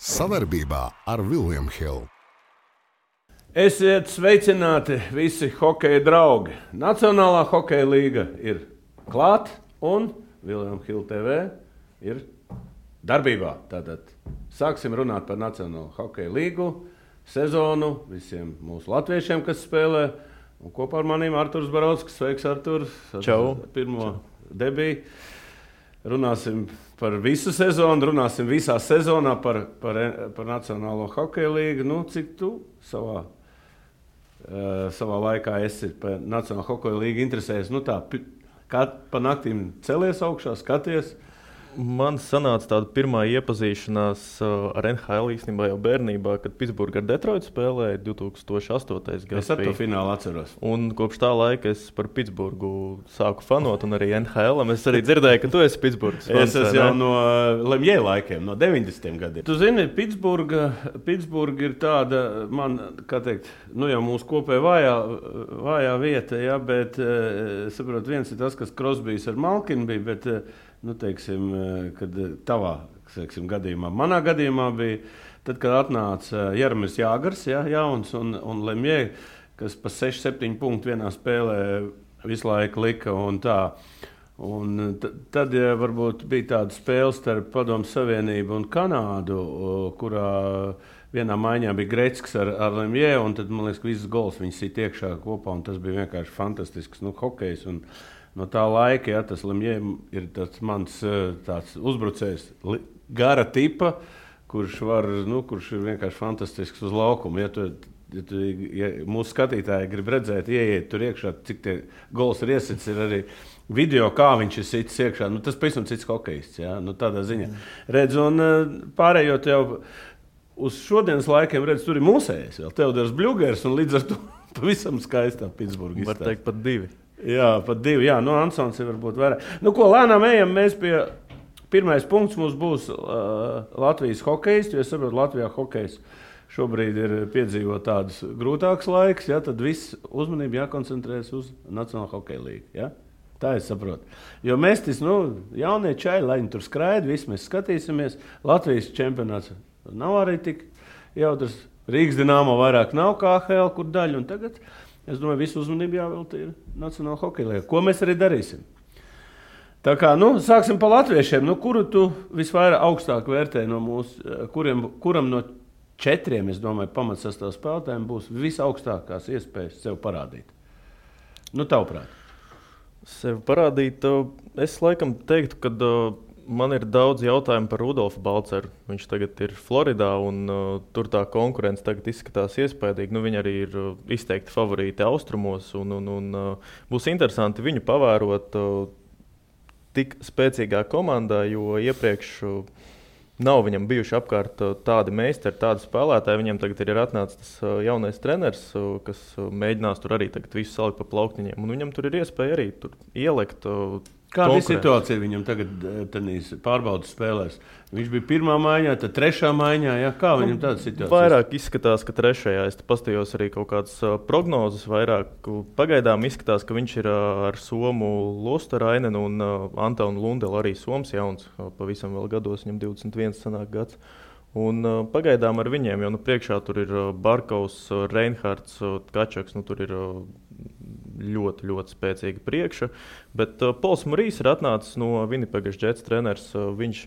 Sadarbībā ar William Hill. Esiet sveicināti visi hokeja draugi. Nacionālā hokeja līga ir klāt un William Hill TV ir darbībā. Tātad sāksim runāt par Nacionālo hokeja līgu sezonu visiem mūsu latviešiem, kas spēlē. Un kopā ar maniem Arturs Barovskis. Sveiks, Artur! Čau! Pirmo debiju. Runāsim par visu sezonu, runāsim visā sezonā par Nacionālo hokeja līgu. Nu, cik tu savā laikā esi par Nacionālo hokeja līgu interesējies? Nu tā, kā pa naktīm celies augšā, skaties? Man sanāca tāda pirmā iepazīšanās ar NHL īstenībā jau bērnībā, kad Pitsburga ar Detroitu spēlēja 2008. gadā. Es ar to finālu atceros. Un kopš tā laika es par Pitsburgu sāku fanot, un arī NHL. Es arī dzirdēju, ka tu esi Pitsburgas fans. Es esmu jau no Lemjē laikiem, no 90. gadiem. Tu zini, Pitsburga ir tāda, man, kā teikt, nu jau mūsu kopēja vājā vieta, ja, bet, saprot, viens ir tas, kas Crosbys ar Malkinu bija, bet, nu, teiksim, kad tavā gadījumā, manā gadījumā bija, tad, kad atnāca Jaromīrs Jāgars, ja, jauns, un Lemjē, kas pa 6-7 punktu vienā spēlē visu laiku lika un tā. Un tad ja, varbūt bija tāda spēle starp Padomu Savienību un Kanādu, kurā vienā maiņā bija Gretzkis ar Lemjē, un tad, man liekas, ka visas gols viņi sit iekšā kopā, un tas bija vienkārši fantastisks, nu, hokejs. Un no tā laika, ja, tas Lemjē ir tas mans tāds uzbrucējs gara tipa, kurš ir vienkārši fantastisks uz laukumu. Ja mūsu skatītāji grib redzēt, ieiet tur iekšā, cik tie gols ir iesits, ir arī video, kā viņš ir sits iekšā. Nu, tas pavisam cits hokejists, ja, nu, tādā ziņā. Redz, un pārējot jau uz šodienas laikiem, redz, tur ir mūsējais vēl, Teodors Bļugers, un līdz ar to pavisam skaistā Pitsburga izstāsta. Var teikt pat divi. Jā, pat divi. Jā, nu Ansons ir varbūt vairāk. Nu, ko lēnām ejam, mēs pie pirmais punkts mums būs Latvijas hokejs, jo es saprotu, Latvijā hokejs šobrīd ir piedzīvot tādus grūtākus laikus, ja, tad viss uzmanība jākoncentrēs uz Nacionālo hokeja līgu, ja? Tā es saprotu. Jo mēs jaunie čaļi, lai viņi tur skraida, visi mēs skatīsimies. Latvijas čempionāts nav arī tik jautrs. Rīgas Dinamo vairāk nav kā AHL, kur daļa, un tagad es domāju, visu uzmanību jāvelta ir Nacionāla hokeja līga. Ko mēs arī darīsim? Tā kā, sāksim pa latviešiem. Kuru tu visvairāk augstāk vērtē no mūsu, kuram no 4, es domāju, pamatsastāv spēlētājiem būs visaugstākās iespējas sev parādīt? Tavuprāt. Sev parādīt, es laikam teiktu, ka man ir daudz jautājumu par Rudolfu Balceru. Viņš tagad ir Floridā, un tur tā konkurence tagad izskatās iespaidīgi. Viņi arī ir izteikti favorīti austrumos, un būs interesanti viņu pavērot tik spēcīgā komandā, jo iepriekš nav viņam bijuši apkārt tādi meistari, tādi spēlētāji. Viņam tagad ir atnācis tas jaunais treneris, kas mēģinās tur arī tagad visu salikt pa plauktiņiem, un viņam tur ir iespēja arī tur ielikt. Kāda ir situācija viņam tagad pārbaudas spēlēs? Viņš bija pirmā maiņā, tad trešā maiņā. Ja? Kā viņam tāda situācija? Vairāk izskatās, ka trešajā. Es paskatījos arī kaut kādas prognozes. Vairāk pagaidām izskatās, ka viņš ir ar Somu Lostarainenu un Antonu Lundelu arī Soms jauns. Pavisam vēl gados, viņam 21 sanāk gads. Un pagaidām ar viņiem, jo priekšā tur ir Barkovs, Reinhards, Kačaks, tur ir ļoti, ļoti spēcīga priekša. Bet Pols Marijs ir atnācis no Winnipegas Jets treneris. Viņš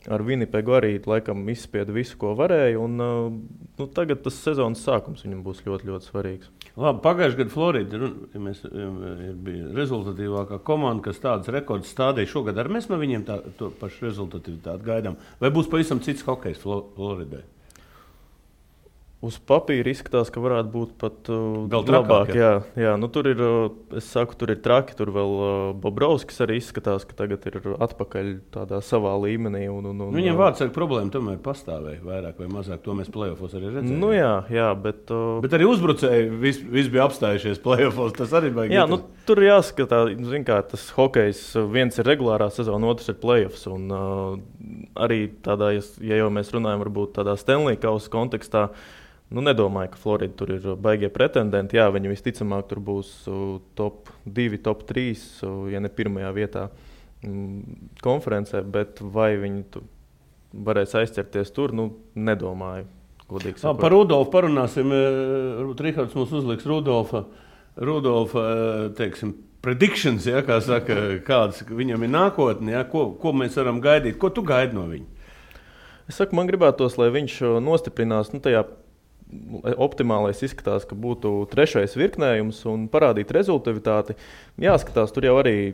ar Winnipegu arī laikam izspieda visu, ko varēja. Un tagad tas sezonas sākums viņam būs ļoti, ļoti svarīgs. Labi, pagājušajā gadā Florida bija rezultatīvākā komanda, kas tādas rekordus stādīja. Šogad arī mēs no viņiem to pašu rezultatīvitāti gaidām. Vai būs pavisam cits hokejs Floridai? Uz papīra izskatās, ka varētu būt pat labāk. Jā. Tur ir, es saku, tur ir traki. Tur vēl Bobrovskis arī izskatās, ka tagad ir atpakaļ tādā savā līmenī. Viņam vārdsargu problēma tomēr pastāvēja vairāk vai mazāk. To mēs play-offos arī redzējām. Jā, bet arī uzbrucēji viss bija apstājušies play-offos. Tas arī baigi. Jā, tur jāskatās, kā tas hokejs. Viens ir regulārā sezona, otrs ir play-offs. Un arī tādā, ja jau mēs runājam, varbūt tādā Stanley Kausa kontekstā, nedomāju, ka Florida tur ir baigie pretendenti. Jā, viņi visticamāk tur būs top 2, top 3, ja ne pirmajā vietā konferencē, bet vai viņi varēs aizķerties tur, nedomāju. Par Rudolfu parunāsim. Rihards mums uzliks Rudolfa teiksim, predictions, ja, kā saka, kādas viņam ir nākotne, ja, ko mēs varam gaidīt. Ko tu gaidi no viņa? Es saku, man gribētos, lai viņš nostiprinās tajā optimālais izskatās, ka būtu trešais virknējums un parādīt rezultatīvitāti. Jāskatās, tur jau arī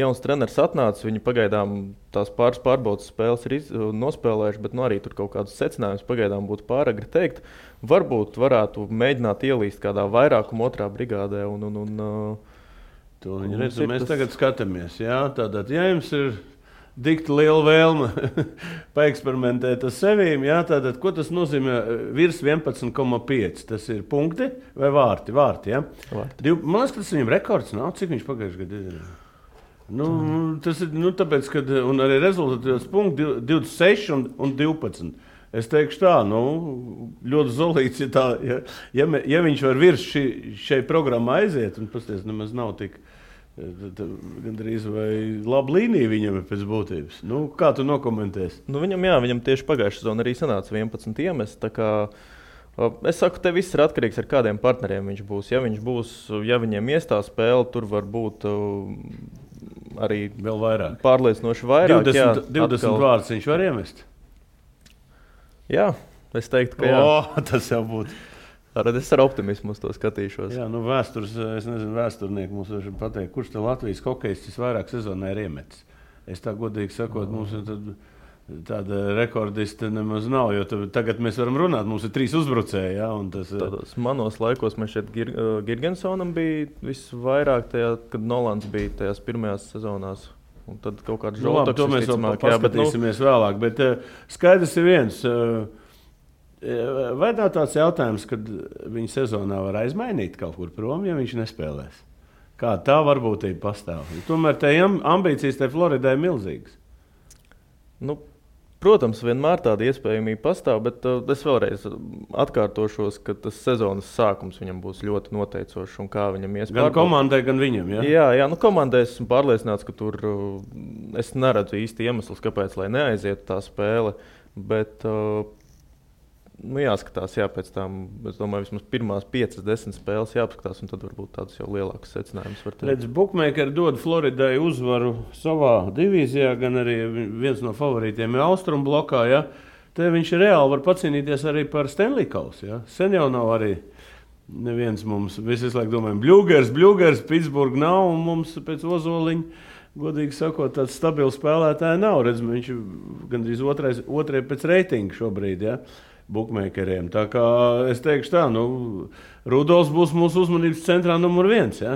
jauns treneris atnācis, viņi pagaidām tās pārbaudas spēles ir nospēlējuši, bet arī tur kaut kādus secinājumus pagaidām būtu pāragri teikt. Varbūt varētu mēģināt ielīst kādā vairākuma otrā brigādē. To viņi redz, mēs tagad skatāmies. Jā, tātad, ja jums ir dikti liela vēlme paeksperimentēt ar sevīm, jā, tātad, ko tas nozīmē virs 11,5? Tas ir punkti vai vārti? Vārti, jā? Vārti. Man liekas, ka tas viņam rekords nav. Cik viņš pagājuši gadu ir? Tas ir, tāpēc, ka un arī rezultatīvs punkti 26 un 12. Es teikšu tā, ļoti zolīts, ja viņš var virs šai programmai aiziet, un pasties, nemaz nav tik gandrīz vai laba līnija viņam ir pēc būtības. Kā tu nokomentēsi? Viņam tieši pagājušā sezona arī sanāca 11 iemest. Es saku, te viss ir atkarīgs ar kādiem partneriem viņš būs. Ja viņiem iestā spēle, tur var būt arī vēl vairāk. Pārliecinoši vairāk. 20 vārdus viņš var iemest? Jā, es teiktu, ka jā. Tas jau būtu. Es ar optimismu uz to skatīšos. Jā, vēsturnieki mums var pateikt, kurš te Latvijas hokejistis vairāk sezonā ir iemetis. Es tā godīgi sakot, mums tāda rekordista nemaz nav, jo tagad mēs varam runāt, mums ir 3 uzbrucēji. Jā, Tādos manos laikos man šeit Girgensonam bija visvairāk, kad Nolans bija tajās pirmajās sezonās. Un tad kaut kāds žoltoks. To mēs vēl paskatīsimies vēlāk, bet skaidrs ir viens. Vai nav tāds jautājums, kad viņa sezonā var aizmainīt kaut kur prom, ja viņš nespēlēs? Kā tā varbūtība pastāv? Tomēr tā ambīcijas te Floridai ir milzīgas. Protams, vienmēr tāda iespējamība pastāv, bet es vēlreiz atkārtošos, ka tas sezonas sākums viņam būs ļoti noteicošs un kā viņam iespējams. Gan komandai, gan viņam, ja? Jā, komandai esmu pārliecināts, ka tur es neredzu īsti iemeslus, kāpēc, lai neaizietu tā spēle, bet jāskatās, pēc tam, es domāju, vismaz pirmās 5-10 spēles jāpaskatās, un tad varbūt tādus jau lielākus secinājumus var teikt. Redz, Bookmakeri dod Floridai uzvaru savā divīzijā, gan arī viens no favorītiem ir Austrum blokā, ja? Te viņš reāli var pacīnīties arī par Stanley Kausu, ja? Sen jau nav arī neviens mums, visi laiku domājam, Bļūgers, Pitsburga nav, un mums pēc Ozoliņa, godīgi sakot, tāds stabils spēlētāji nav. Redz, viņš gandrīz otrai pēc reitinga šobrīd, ja? Bookmakeriem. Tā kā es teikšu tā, Rudolfs būs mūsu uzmanības centrā numur 1, ja?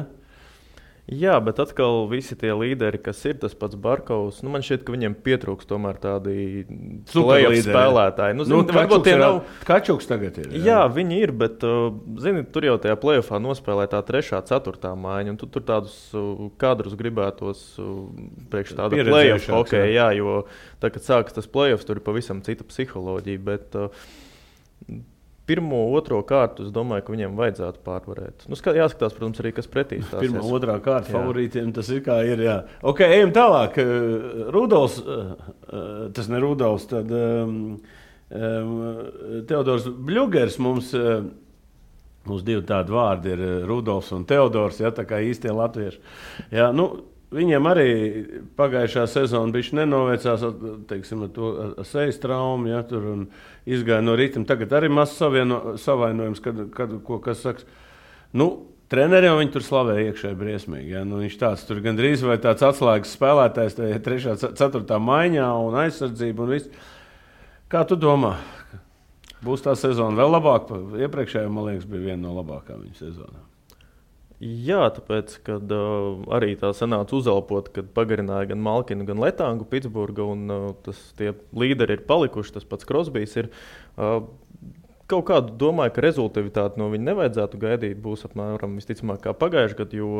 Jā, bet atkal visi tie līderi, kas ir tas pats Barkovs, man šķiet, ka viņiem pietrūks tomēr tādi play-off spēlētāji. Varbūt tie nav. Kačuks tagad ir. Jā, viņi ir, bet tur jau tajā play-offā nospēlē tā 3., 4. maiņa, un tur tādus kadrus gribētos priekš tāda play-off hokeja, jā, jo tā, kad sākas tas play-offs, tur ir pavisam cita psiholoģija, bet 1., 2. kārtu, es domāju, ka viņiem vajadzētu pārvarēt. Jāskatās, protams, arī, kas pretī stāsies. 1., 2. kārta favorītiem tas ir kā ir, jā. Ok, ejam tālāk. Rudolfs, tas ne Rudolfs, tad Teodors Bļūgers mums 2 tādi vārdi ir Rudolfs un Teodors, ja, tā kā īstie latvieši. Jā, viņiem arī pagājušā sezona bišķi nenovēcās, teiksim, ar sejas traumu, ja, tur un izgāja no ritma. Tagad arī mazs savainojums, kas saks. Treneriem viņi tur slavē iekšēji briesmīgi. Ja. Viņš tāds tur gandrīz vai tāds atslēgas spēlētājs 3., 4. maiņā un aizsardzība un viss. Kā tu domā? Būs tā sezona vēl labāka? Iepriekšējā, man liekas, bija viena no labākām viņa sezonām. Jā, tāpēc, kad arī tā sanāca uzelpot, kad pagarināja gan Malkinu, gan Letangu Pitsburga, un tie līderi ir palikuši, tas pats Crosbys ir. Kaut kādu domāju, ka rezultatīvitāti no viņa nevajadzētu gaidīt, būs apmēram visticamāk kā pagājuši gadu, jo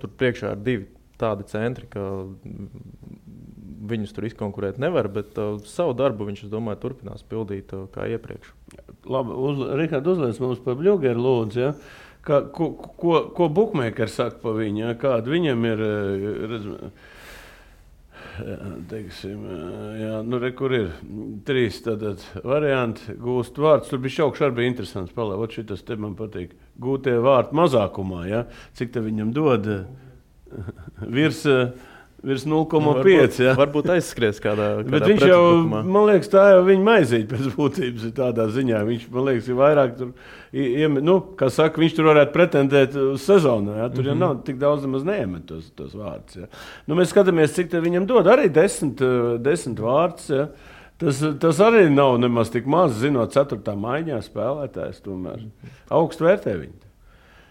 tur priekšā ir 2 tādi centri, ka viņus tur izkonkurēt nevar, bet savu darbu viņš, es domāju, turpinās pildīt kā iepriekš. Labi, Rihard, uzliec mums par Bļūgeru lūdzu, ja? Ko bookmakeri saka par viņu? Ja? Kāda viņam ir teiksim, jā, nu, kur ir 3 tātad varianti gūst vārdus. Tur bija šaukš arī bija interesants palēvot, šitas te man patīk. Gūtie vārti mazākumā, ja? Cik te viņam dod virs 0,5. Ja? Varbūt aizskries kādā Bet viņš jau, man liekas, tā jau viņa maizīte pēc būtības ir tādā ziņā. Viņš, man liekas, ir vairāk tur, kā saka, viņš tur varētu pretendēt uz sezonu. Ja? Tur jau nav tik daudz nemaz neiemet tos vārdus. Ja? Nu, mēs skatāmies, cik te viņam dod. Arī 10 vārdus. Ja? Tas arī nav nemaz tik maz, zinot 4. maiņā spēlētājs. Tomēr augstu vērtē viņu.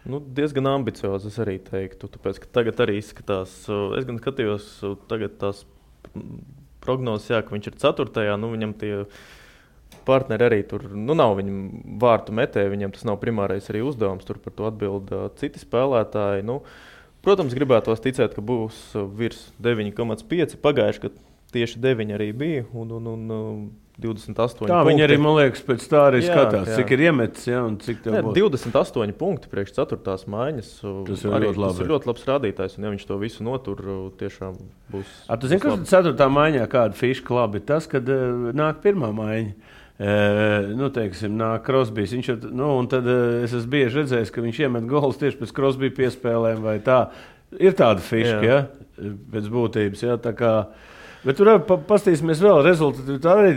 Nu, diezgan ambiciozi, es arī teiktu, tāpēc, ka tagad arī izskatās, es gan skatījos tagad tās prognozes, jā, ka viņš ir 4. Nu, viņam tie partneri arī tur, nu, nav viņam vārtu metēji, viņam tas nav primārais arī uzdevums, tur par to atbild citi spēlētāji. Nu, protams, gribētos ticēt, ka būs virs 9,5, pagājuši, ka tieši 9 arī bija, un 28 tā punkti. viņi arī, man liekas, pēc tā arī skatās, cik ir iemetis, ja, un cik tev būs. 28 punkti priekš 4. maiņas. Tas ir ļoti labs rādītājs, un ja viņš to visu notur, tiešām būs. Tu zini, kas 4. maiņā kāda fiška labi? Tas, kad nāk 1. maiņa. Nu, teiksim, nāk Crosbys. Un tad es esmu bieži redzējis, ka viņš iemet golus tieši pēc Crosby piespēlēm vai tā. Ir tāda fiška, ja, pēc būtības, ja, tā kā. Bet tur pastīsimies vēl rezultātu. Tā arī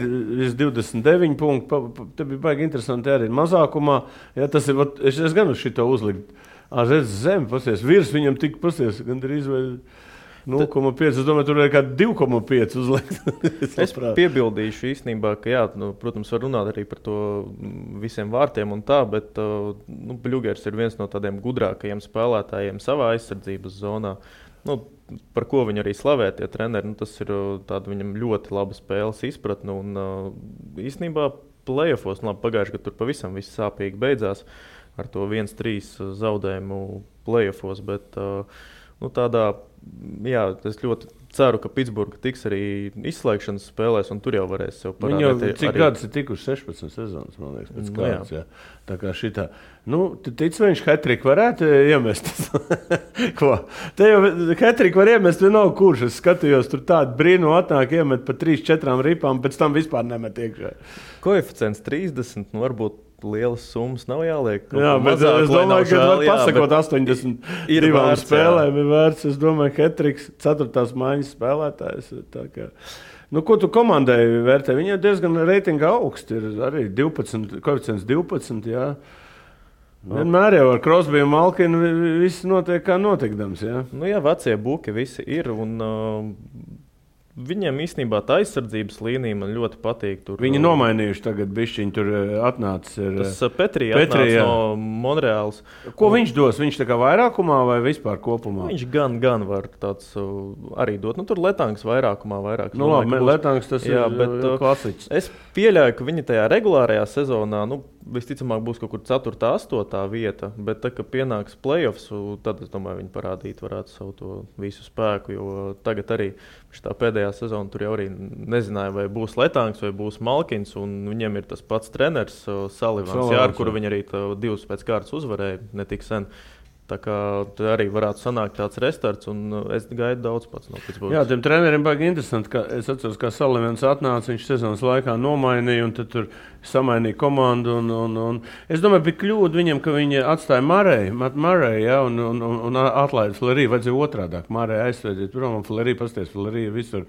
ir 29 punkti. Te bija baigi interesanti arī mazākumā. Ja, tas ir, es gan uz šito uzlikt. Redz zem, pasties, virs viņam tik pasties, gandrīz vai 0,5. Es domāju, tur ir kā 2,5 uzlikt. Es piebildīšu īstenībā, ka jā, protams, var runāt arī par to visiem vārtiem un tā, bet Bļugers ir viens no tādiem gudrākajiem spēlētājiem savā aizsardzības zonā. Par ko viņi arī slavē tie treneri, tas ir tāda viņam ļoti laba spēles izpratne. Un īstenībā playoffos, pagājuši, ka tur pavisam viss sāpīgi beidzās ar to 1-3 zaudējumu playoffos, bet tādā, jā, es ļoti ceru, ka Pitsburga tiks arī izslēgšanas spēlēs, un tur jau varēs sev parādīt. Viņi jau cik gadus ir tikuši 16 sezonas, man liekas, pēc kāds, jā. Tā kā šitā. Tic, viņš hat-trick varētu iemest. Ko? Te jau hat-trick var iemest vienalga kurš. Es skatījos, tur tādu brīnu atnāk iemet pa 3-4 ripām, pēc tam vispār nemet iekšā. Koeficients 30, varbūt lielas summas nav jāliek. Jā, bet es domāju, ka var pasakot 82 spēlēm ir vērts. Es domāju, ka hat-tricks 4. maiņas spēlētājs. Tā kā. Ko tu komandai vērtē? Viņa ir diezgan reitinga augsti. Ir arī 12, koeficients 12, jā. Vienmēr jau ar Crosby un Malkinu viss notiek kā notikdams, jā. Jā, vecie buki visi ir un viņiem īstenībā tā aizsardzības līnija man ļoti patīk. Viņi nomainījuši tagad bišķiņi, tur atnācis. Tas Petri atnācis no Monreāls. Ko viņš dos? Viņš tā kā vairākumā vai vispār kopumā? Viņš gan var tāds arī dot. Tur Letangs vairākumā vairāk. Letangs tas ir klasiķis. Es pieļauju, ka viņi tajā regulārajā sezonā, visticamāk būs kaut kur 4. 8. vieta, bet tā, ka pienāks playoffs, tad, es domāju, viņi parādīt varētu savu to visu spēku, jo tagad arī tā pēdējā sezona tur jau arī nezināja, vai būs Letangs vai būs Malkins, un viņiem ir tas pats treneris Salivans, ar kuru viņi arī 2 pēc kārtas uzvarēja ne tik sen. Tā kā arī varētu sanākt tāds restarts, un es gaidu daudz pats no Pitsburgas. Jā, tiem treneriem baigi interesanti, ka es atceros, kā Salivans atnāca, viņš sezonas laikā nomainīja, un tad tur samainīja komandu, un es domāju, bija kļūda viņam, ka viņi atstāja Murray, ja, un atlaida Flerī, vajadzēja otrādāk, Murray aizsvēdīt, prom, un Flerī pasties, Flerī visur,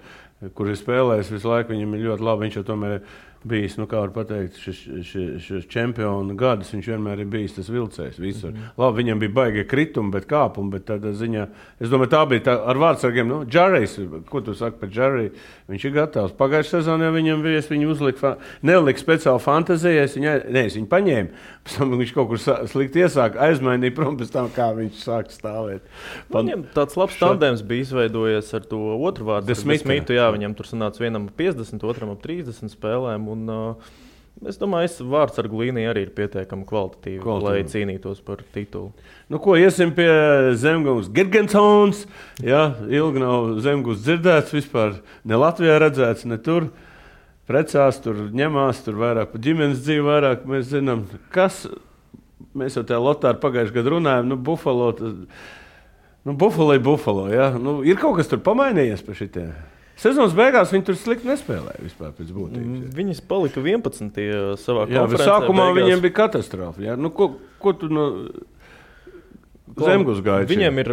kur ir spēlējis visu laiku, viņam ir ļoti labi, viņš jau tomēr bijis, kā var pateikt, šis čempionu gadus, viņš vienmēr ir bijis tas vilcējs visur. Labi, viņam bija baigie kritumi, bet kāpumi, bet tādā ziņā, es domāju, tā bija tā ar vārdsargiem, Džarejs, ko tu saki par Džareju, viņš ir gatavs. Pagājušajā sezonā viņam bija, es viņu nelika speciāli fantazijai, es viņu paņēmu, pēc tam viņš kaut kur slikti iesāka, aizmainīja prom pēc tam, kā viņš sāka stāvēt. Viņam tāds labs tandems bija izveidojies ar to otru vārdu, Smītu, jā, viņam tur sanāca vienam 50, otram 30 spēlēm. Un, es domāju, vārdsargu līnija arī ir pietiekami kvalitatīva, lai cīnītos par titulu. Ko iesim pie Zemgūs Girgensons? Jā, ilgi nav Zemgūs dzirdēts vispār, ne Latvijā redzēts, ne tur. Precās, tur ņemās, tur vairāk par ģimenes dzīvi, vairāk mēs zinām, kas. Mēs jau tajā lotā pagājušajā gadā runājam, Buffalo, Buffalo, jā. Ir kaut kas tur pamainījies par šitiem? Sezonas beigās viņi tur slikti nespēlēja vispār pēc būtības. Viņas palika 11. savā Jā, konferencē. sākumā beigās. viņiem bija katastrofa. Jā. Nu, ko tu no Zemgus gaidi? Viņiem ir,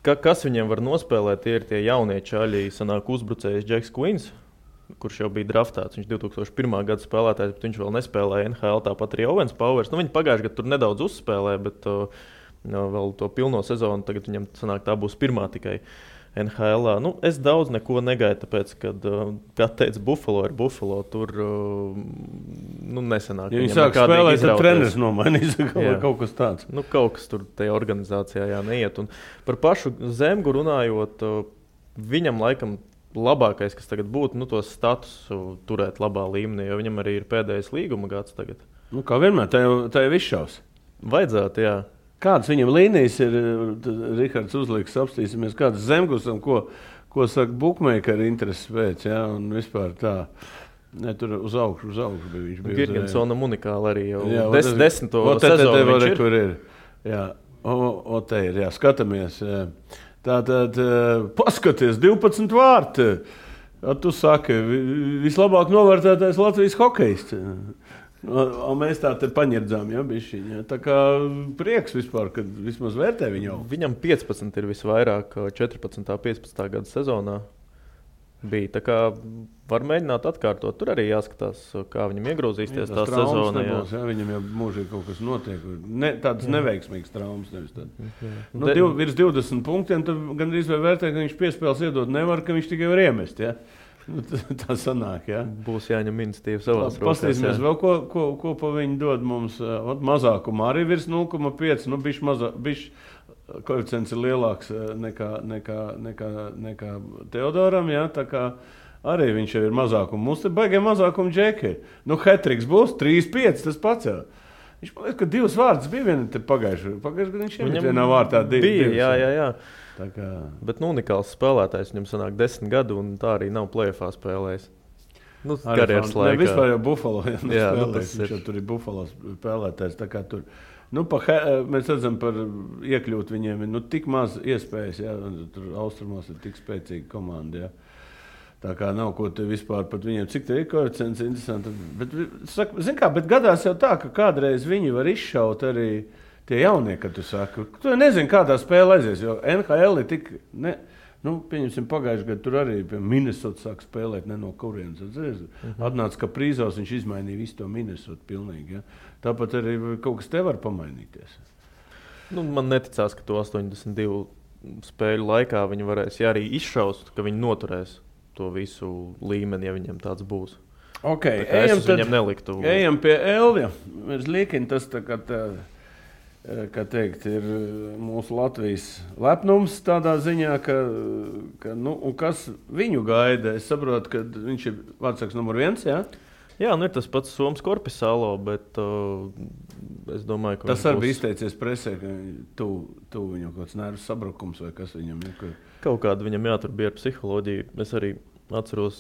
kas viņiem var nospēlēt, tie ir tie jaunie čaļi, sanāk uzbrucējs Džeks Quins, kurš jau bija draftēts. Viņš 2001. Gada spēlētājs, bet viņš vēl nespēlēja NHL, tāpat arī Owens Powers. Nu, viņi pagājuši gadu tur nedaudz uzspēlēja, bet vēl to pilno sezonu tagad viņam sanāk tā būs pirmā tikai NHL. Nu, es daudz neko negaidu, tāpēc, kad teica Buffalo ir Buffalo, tur nesanāk. Ja viņi sāk spēlēt, tad treneris nomainīs vai kaut kas tāds. Nu, kaut kas tur tajā organizācijā neiet. Un par pašu Zemgu runājot, viņam laikam labākais, kas tagad būtu, to statusu turēt labā līmenī, jo viņam arī ir pēdējais līguma gads tagad. Nu, kā vienmēr, tā jau izšaus. Vajadzētu, jā. Kādas viņam līnijas ir, Rihards uzliks, apstīsimies, kādas Zemgusam, ko saka bookmakeri intereses pēc, jā, un vispār tā. Ne, tur uz augšu bija viņš. Girgensonam unikāli arī jau jā, 10. sezonu viņš ir. Kur ir. Jā, te ir, jā, skatāmies. Jā. Tātad, paskaties, 12 vārti. Tu saki, vislabāk novērtētais Latvijas hokejists. Un mēs tā te paņirdzām, ja, bišķiņ. Ja. Tā kā prieks vispār, kad vismaz vērtē viņu. Viņam 15 ir visvairāk 14. 15. gada sezonā bija. Tā kā var mēģināt atkārtot. Tur arī jāskatās, kā viņam iegrozīsties tā sezona. Nebūs, ja. Viņam jau mūžīgi kaut kas notiek. Tādas neveiksmīgas traumas nevis tad. Virs 20 punktiem, tad gandrīz vai vērtē, ka viņš piespēles iedot nevar, ka viņš tikai var iemest, ja. Tā sanāk, jā. Būs jāņem iniciatīva savās rokās. Pastīsimies vēl, ko pa viņu dod mums. Mazākumā arī virs 0,5. Nu, bišķi koeficients ir lielāks nekā Teodoram, jā. Tā kā arī viņš jau ir mazākuma. Mums te baigē mazākuma džeki. Nu, hat-triks būs 3-5, tas pats jau. Viņš man liekas, ka 2 vārds bija viena te pagājuši. Pagājuši, kad viņš iemet vienā vārtā 2. Bija, jā. Kā... Bet unikāls spēlētājs, viņam sanāk 10 gadu, un tā arī nav play-offā spēlējis. Karjeras laikā. Ne, vispār jau Buffalo spēlējis, viņš jau tur ir Buffalo spēlētājs. Tā kā tur, mēs redzam par iekļūt viņiem, tik maz iespējas, jā, tur austrumos ir tik spēcīga komanda, jā. Tā kā nav ko te vispār pat viņiem, cik te ir koeficients interesanti. Bet gadās jau tā, ka kādreiz viņi var izšaut arī tie jaunie, kad tu saki, tu nezini, kādā spēlē aizies, jo NHL ir tik, pieņemsim pagājuši gadu, tur arī pie Minnesota sāk spēlēt, ne no kurienes. Atnāca, ka prīzos viņš izmainīja visu to Minnesota pilnīgi, ja. Tāpat arī kaut kas te var pamainīties. Man neticās, ka to 82 spēļu laikā viņi varēs, ja arī izšaust, ka viņi noturēs to visu līmeni, ja viņiem tāds būs. Ok, ejam pie Elvija. Mēs liekam, tas tā kā tā, kā teikt, ir mūsu Latvijas lepnums tādā ziņā, un kas viņu gaida. Es saprotu, ka viņš ir vārdsargs numur 1, jā? Jā, ir tas pats Soms Korpisalo, bet es domāju, ka tas arī bija izteicies presē, ka tu viņam kaut kāds nervu sabrukums vai kas viņam ir. Kaut kāda viņam tur bija ar psiholoģiju. Es arī atceros,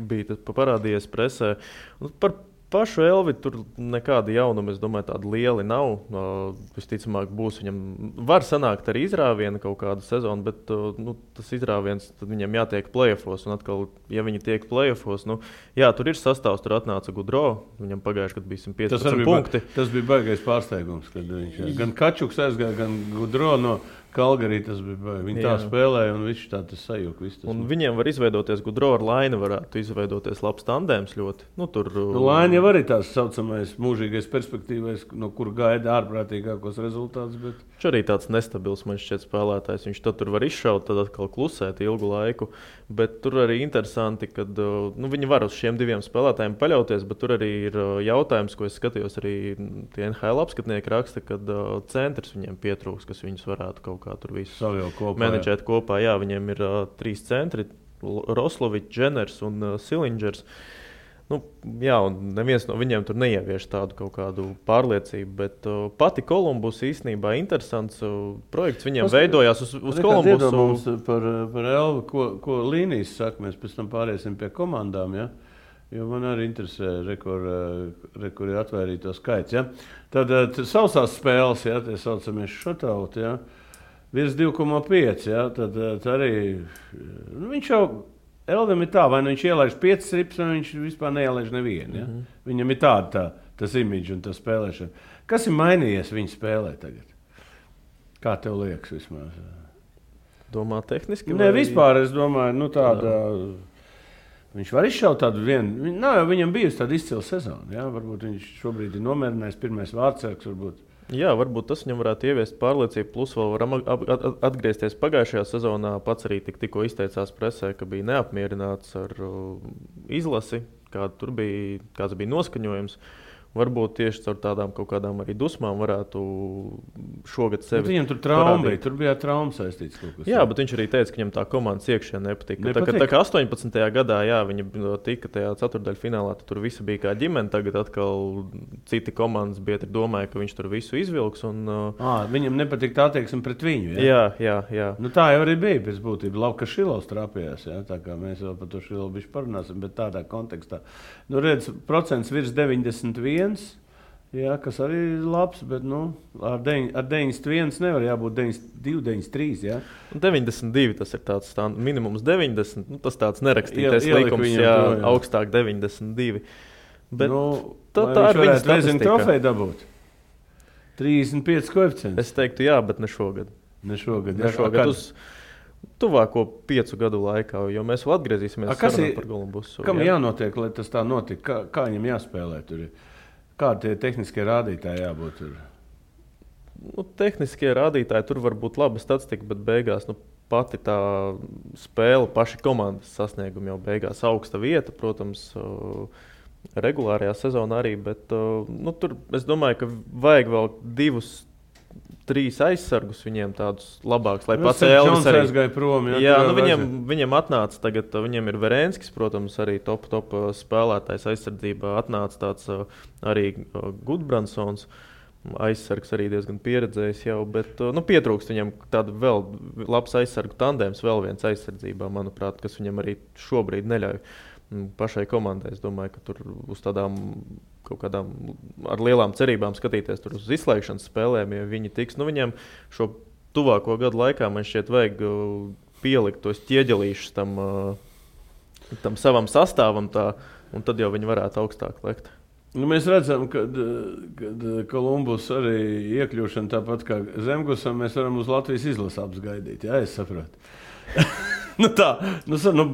bija parādījies presē. Par pašu Elvi tur nekāda jaunuma, es domāju, tāda liela nav. Visticamāk būs viņam, var sanākt arī izrāviena kaut kādu sezonu, bet tas izrāviens, tad viņam jātiek play-offos, un atkal, ja viņi tiek play-offos, jā, tur ir sastāvs, tur atnāca Gudro, viņam pagājuši, kad bija 115 punkti. Tas bija baigais pārsteigums, kad viņš gan Kačuks aizgāja, gan Gudro no Kalgarī, tas bija baigi. Viņi tā spēlēja, un viņš tā tas sajūka. Un viņiem var izveidoties, Gudro ar Laini varētu izveidoties labs tandēms ļoti. Laini jau arī tās saucamais mūžīgais perspektīvais, no kur gaida ārprātīgākos rezultātus. Bet... Viņš arī tāds nestabils, man šķiet, spēlētājs. Viņš tad tur var izšaut, tad atkal klusēt ilgu laiku. Bet tur arī interesanti, ka viņi var uz šiem 2 spēlētājiem paļauties, bet tur arī ir jautājums, ko es skatījos arī tie NHL apskatnieki raksta, kad centrs viņiem pietrūks, kas viņus varētu kaut kā tur visu menedžēt kopā. Jā, viņiem ir 3 centri, Roslovičs, Dženers un Silingers. Jā, un neviens no viņiem tur neievieš tādu kaut kādu pārliecību, bet pati Kolumbus īstenībā interesants projekts viņiem veidojās uz Kolumbusu. Par Elvu, ko līnijas saka, mēs pēc tam pāriesim pie komandām, ja? Jo man arī interesē, kur ir atvērīto skaits. Ja? Tad sausās spēles, ja, tie saucamies šotauti, ja? virs 2,5. Ja, tad arī viņš jau Elvim ir tā, vai viņš ielaiž 5 rips, vai viņš vispār neielaiž nevienu. Ja? Viņam ir tas imidžs un tā spēlēšana. Kas ir mainījies viņa spēlē tagad? Kā tev liekas vismaz? Domā tehniski? Nē, vispār es domāju, tāda... Viņš var izšaut tādu vienu... Viņam bijusi tāda izcila sezona. Ja? Varbūt viņš šobrīd ir nomierinājis pirmais vārdsargs, varbūt. Jā, varbūt tas viņam varētu ieviest pārliecību, plus vēl var atgriezties pagājušajā sezonā. Pats arī tikko izteicās presē, ka bija neapmierināts ar izlasi, kāds bija noskaņojums. Varbūt tieši caur tādām kaut kādām arī dusmām varētu šogad sevi. Viņam tur trauma bija, tur bija trauma saistīts kaut kas. Jā, bet viņš arī teica, ka viņam tā komandas iekšienē nepatika. Tā kā 18. gadā, jā, viņi tika tajā ceturtdaļfinālā, tur visi bija kā ģimene, tagad atkal citi komandas biedri domāja, ka viņš tur visu izvilks. Viņam nepatika tā attieksme pret viņu, jā? Jā. Tā jau arī bija pēc būtības. Labi, ka Šilovs trāpījās, jā? Tā kā mēs vēl par to Šilovu bišķi parunāsim, bet tādā kontekstā. Redz, procents virs 91. Jā, kas arī ir labs, bet ar 91 nevar jābūt 92, 93. Jā. 92 tas ir tāds minimums 90. Tas tāds nerakstītais likums, jā, augstāk 92. Bet tā ir viņa statistika. Trofeju dabūt? 35 koeficients. Es teiktu jā, bet ne šogad. Ne šogad uz tuvāko 5 gadu laikā, jo mēs vēl atgriezīsimies sarunā par Kolumbusu. Kam jānotiek, lai tas tā notika? Kā viņam jāspēlē tur? Kādi tie tehniskie rādītāji jābūt tur? Tehniskie rādītāji tur var būt laba statistika, bet beigās pati tā spēle, paši komandas sasniegumi jau beigās augsta vieta, protams, regulārajā sezonā arī, bet tur es domāju, ka vajag vēl 2-3 aizsargus viņiem tādus labākus, lai pats Elvis arī aizgāja prom. Jā, viņiem atnāca tagad, viņiem ir Verenskis, protams, arī top spēlētājs aizsardzībā, atnāca tāds arī Gudbrandsons, aizsargs arī diezgan pieredzējis jau, bet pietrūkst viņam tādu vēl labs aizsargu tandēms, vēl viens aizsardzībā, manuprāt, kas viņam arī šobrīd neļauj pašai komandai. Es domāju, ka tur uz tādām kaut kādām ar lielām cerībām skatīties tur uz izslēgšanas spēlēm, ja viņi tiks. Viņiem šo tuvāko gadu laikā man šķiet vajag pielikt tos ķieģelīšus tam savam sastāvam, un tad jau viņi varētu augstāk lekt. Mēs redzam, ka Kolumbus arī iekļūšana tāpat kā Zemgusam, mēs varam uz Latvijas izlasi apgaidīt. Jā, es saprotu.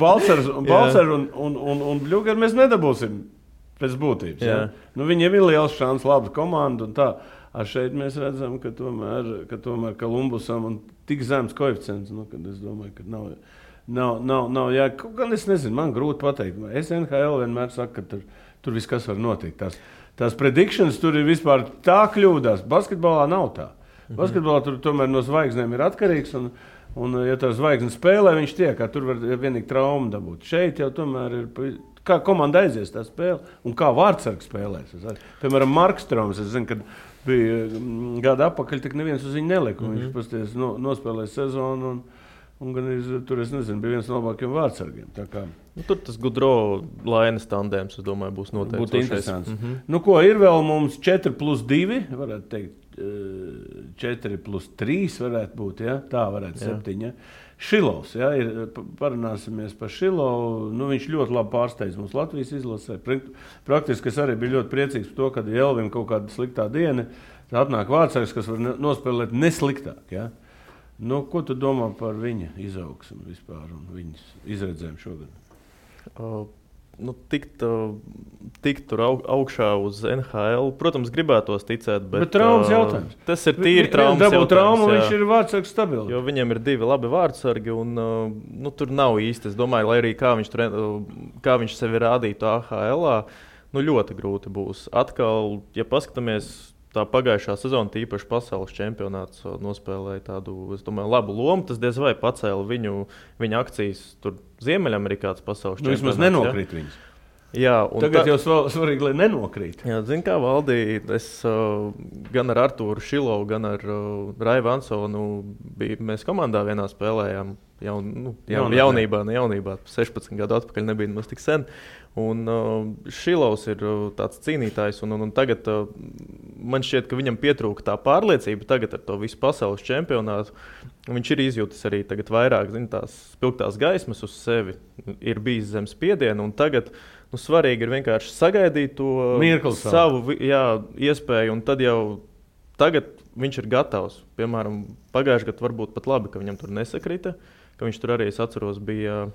Balcers un Bļugari mēs nedabūsim pēc būtības. Ja? Viņiem ir liels šans, laba komanda un tā. Šeit mēs redzam, ka tomēr Kolumbusam un tik zems koeficients, kad es domāju, ka nav gan es nezinu, man grūti pateikt. Es NHL vienmēr saku, ka tur viss kas var notikt. Tās predictions tur ir vispār tā kļūdās. Basketbolā nav tā. Basketbolā tur tomēr no zvaigznēm ir atkarīgs un ja tā zvaigzne spēlē, viņš tiek, tur var vienīgi traumu dabūt. Šeit jau tomēr ir, kā komanda aizies tā spēle un kā vārdsargs spēlēs. Piemēram, Markstroms, es zinu, kad bija gada apakaļ, tik neviens uz viņu nelika. Viņš pasties nospēlēja sezonu un gan tur, es nezinu, bija viens no labākiem vārdsargiem. Tur tas Gudro Lainas tandēms, es domāju, būs noteikti. Būtu interesants. Ko ir vēl mums 4+2, varētu teikt, 4+3 varētu būt, ja? Tā varētu 7. Ja? Šilovs, ja? Parunāsimies par Šilovu. Viņš ļoti labi pārsteidz mums Latvijas izlasē. Praktiski es arī biju ļoti priecīgs par to, kad Elvim kaut kāda sliktā diena, atnāk vārdsargs, kas var nospēlēt nesliktāk. Ja? Ko tu domā par viņa izaugsmu vispār un viņas izredzēm šogad? Tikt tur augšā uz NHL, protams, gribētos ticēt, bet traumas jautājums. Tas ir tīri traumas jautājums. Traumu, viņš ir vārdsargs stabils. Jo viņiem ir 2 labi vārdsargi un tur nav īsti. Es domāju, lai arī kā viņš sevi rādītu AHL-ā, ļoti grūti būs. Atkal, ja paskatāmies, tā pagājušā sezona, tīpaši pasaules čempionāts, nospēlēja tādu, es domāju, labu lomu. Tas diez vai pacēla viņa akcijas tur Ziemeļamerikāts pasaules čempionāts. Vismaz nenokrīt viņas. Jā, tagad jau svarīgi, lai nenokrīt. Jā, zini, kā Valdī, es gan ar Artūru Šilovu, gan ar Raivu Ansonu mēs komandā vienā spēlējām. Jaunībā, 16 gadu atpakaļ nebija nemaz tik sen. Un Šilovs ir tāds cīnītājs, un tagad man šķiet, ka viņam pietrūka tā pārliecība tagad ar to visu pasaules čempionātu, Viņš ir izjūtis arī tagad vairāk, tās spilgtās gaismas uz sevi, ir bijis zem spiediena, un tagad svarīgi ir vienkārši sagaidīt to savu iespēju, un tad jau tagad viņš ir gatavs. Piemēram, pagājušajā gadā varbūt pat labi, ka viņam tur nesakrita, ka viņš tur arī, es atceros, bija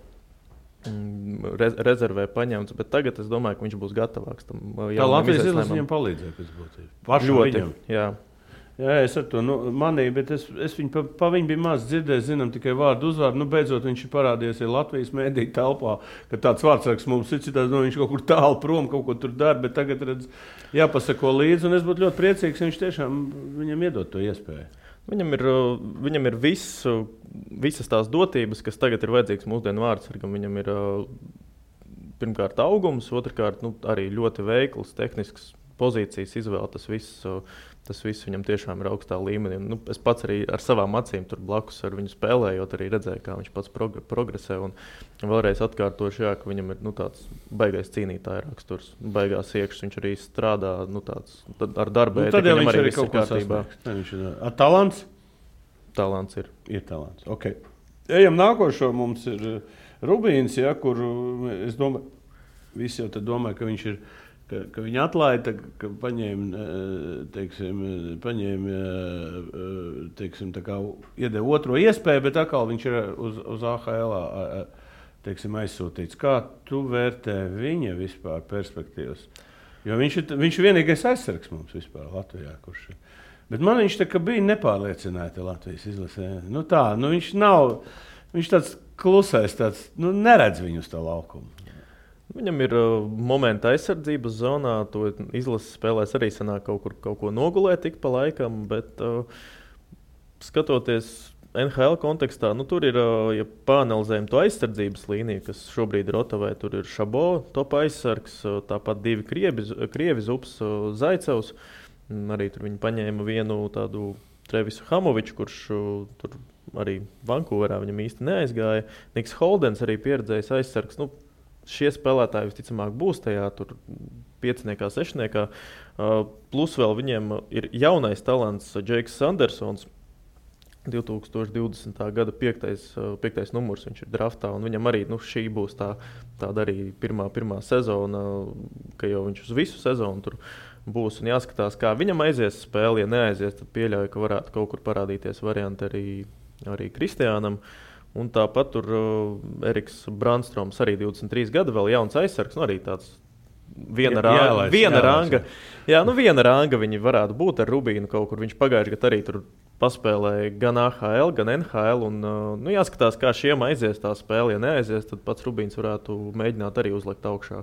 rezervē paņemts, bet tagad es domāju, ka viņš būs gatavāks. Tā Latvijas izlase viņam palīdzēja pēc būtības. Ļoti, jā. Jā, es ar to manīju, bet es viņu pa viņu biju maz dzirdējis, zinām tikai vārdu uzvārdu. Beidzot viņš ir parādījies Latvijas mēdīju telpā, ka tāds vārdsargs mums ir citāds, viņš kaut kur tālu prom kaut ko tur dara, bet tagad redz, jāpasako līdzi, un es būtu ļoti priecīgs, ja viņš tiešām viņam iedod to iespēju. Viņam ir visas tās dotības, kas tagad ir vajadzīgs mūsdienu vārdsargam. Viņam ir pirmkārt augums, otrkārt arī ļoti veikls, tehnisks pozīcijas izvēle, tas viss viņam tiešām ir augstā līmenī. Es pats arī ar savām acīm tur blakus ar viņu spēlējot, arī redzēju, kā viņš pats progresē. Un vēlreiz atkārtošu, ka viņam ir tāds baigais cīnītāja raksturs, baigās iekšas. Viņš arī strādā ar darbu. Tad jau viņš arī kaut ko sasniegs. Talants? Talants ir. Ir talants, ok. Ejam nākošo, mums ir Rubīns, kur es domāju, visi jau tad domāju, ka viņš ir, ka viņi atlaida, ka paņēma, tā kā iedeva otro iespēju, bet atkal viņš ir uz AHL aizsūtīts. Kā tu vērtē viņa vispār perspektīvas? Jo viņš ir vienīgais aizsargs mums vispār Latvijā, kurš ir. Bet man viņš tā kā bija nepārliecināti Latvijas izlasē. Viņš tāds klusais, neredz viņu uz tā laukumu. Viņam ir momenti aizsardzības zonā, to izlases spēlēs arī sanāk kaut ko nogulēt tik pa laikam, bet skatoties NHL kontekstā, tur ir, ja pāanalizējam to aizsardzības līniju, kas šobrīd ir Otavai, tur ir Šabo, top aizsargs, tāpat divi Krievi Zups, Zaicevs, arī tur viņi paņēma vienu tādu Trevisu Hamoviču, kurš tur arī Vankūverā viņam īsti neaizgāja, Niks Holdens arī pieredzējis aizsargs, šie spēlētāji visticamāk būs tajā tur 5. 6. Plus vēl viņiem ir jaunais talants Džeiks Sandersons, 2020. gada 5. numurs viņš ir draftā, un viņam arī šī būs tāda arī pirmā sezona, ka jau viņš uz visu sezonu tur būs un jāskatās, kā viņam aizies spēle. Ja neaizies, tad pieļauju, ka varētu kaut kur parādīties varianti arī Kristiānam. Un tāpat tur Eriks Brandstroms, arī 23 gada, vēl jauns aizsargs, arī tāds viena ranga viņi varētu būt ar Rubīnu kaut kur. Viņš pagājuši gadu arī tur paspēlēja gan AHL, gan NHL, un jāskatās, kā šiem aizies tā spēle. Ja neaizies, tad pats Rubīns varētu mēģināt arī uzlikt augšā.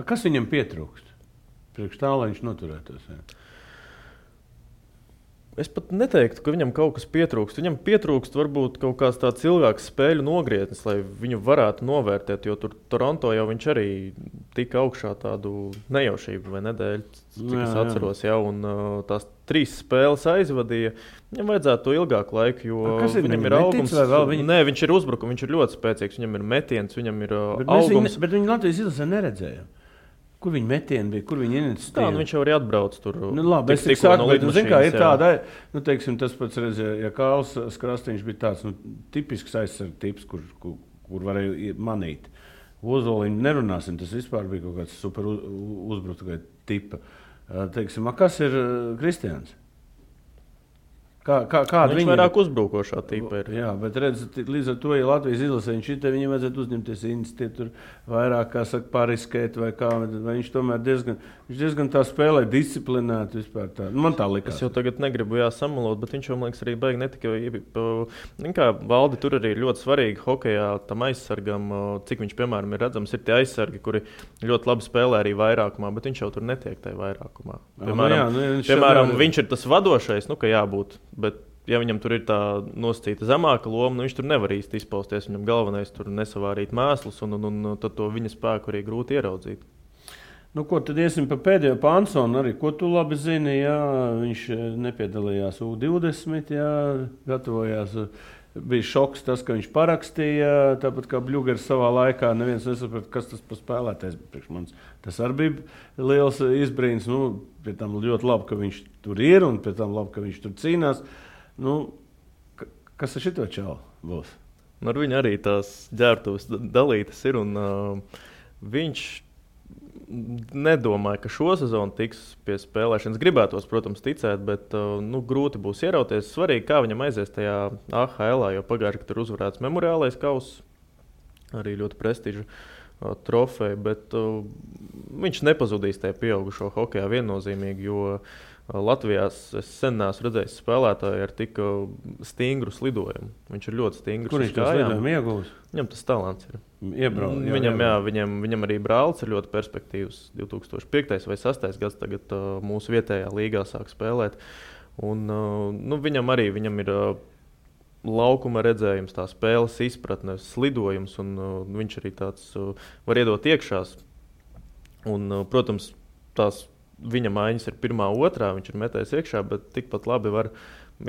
Kas viņam pietrūkst? Priekš tā, lai viņš noturētos? Jā. Es pat neteiktu, ka viņam kaut kas pietrūkst. Viņam pietrūkst varbūt kaut kāds tāds ilgāks spēļu nogrietnis, lai viņu varētu novērtēt, jo tur Toronto jau viņš arī tika augšā tādu nejaušību vai nedēļu, cik es atceros jau, un tās 3 spēles aizvadīja. Viņam vajadzētu to ilgāku laiku, jo viņam ir augums. Nē, viņš ir uzbrukums, viņš ir ļoti spēcīgs, viņam ir metiens, viņam ir augums. Bet viņi Latvijas izlasē neredzēja. Kur viņa metieni bija, kur viņa iniciatīva? Viņš jau arī atbrauc tur. Labi, es tik saku, bet, kā ir tāda, tas pats redzēja, ja Kāls Krastiņš bija tāds, tipisks aizsarga tips, kur varēja manīt. Ozoliņu nerunāsim, tas vispār bija kaut kāds super uzbrucēja tipa. Kas ir Kristiāns? Viņš vairāk uzbrukošā tipa ir. Jā, bet līdz ar to, ja Latvijas izlasē viņam vajadzētu uzņemties iniciatīvu, tur vairāk, kā saka, pariskēt vai kā, vai viņš tomēr diezgan tā spēlē disciplinēti vispār tā. Man tā likās. Es jau tagad negribu samalot, bet viņš jau, man liekas, arī baigi netika. Kā Valdi, tur arī ir ļoti svarīgi hokejā tam aizsargam, cik viņš, piemēram, ir redzams, ir tie aizsargi, kuri ļoti labi spēlē arī vairākumā, bet viņš jau tur netiek tajā vairākumā. Piemēram, viņš ir tas vadošais, ka jābūt. Bet, ja viņam tur ir tā nosacīta zemāka loma, viņš tur nevar īsti izpausties. Viņam galvenais tur nesavārīt mēslus, un tad to viņa spēku arī grūti ieraudzīt. Ko tad iesim pa pēdējo Pansonu arī? Ko tu labi zini? Jā, viņš nepiedalījās U20, jā, gatavojās. Bija šoks tas, ka viņš parakstīja, tāpat kā Bļugers savā laikā. Neviens nesaprata, kas tas pa spēlētājs priekš manis. Tas arī bija liels izbrīns. Pie tam ļoti labi, ka viņš tur ir, un pie tam labi, ka viņš tur cīnās. Kas ar šito čalu būs? Ar viņu arī tās ģērbtuves dalītas ir, un viņš nedomāja, ka šo sezonu tiks pie spēlēšanas. Gribētos, protams, ticēt, bet grūti būs ierauties. Svarīgi, kā viņam aizies tajā AHL, jo pagājuši, ka tur uzvarēts memoriālais kauss, arī ļoti prestiža trofeja, bet viņš nepazudīs tajā pieaugušo hokejā viennozīmīgi, jo Latvijā es sen neesmu redzējis spēlētāju ar tik stingru slidojumu. Viņš ir ļoti stingrs. Kur viņš to slidojumu iegūs? Viņam tas talants ir. Viņam arī brālis ir ļoti perspektīvs. 2005. vai 2006. gads tagad mūsu vietējā līgā sāk spēlēt. Un, viņam ir laukuma redzējums, tā spēles izpratne, slidojums, un viņš arī tāds var iedot iekšās. Un, protams, tās viņa maiņas ir 1, 2, viņš ir metējis iekšā, bet tikpat labi var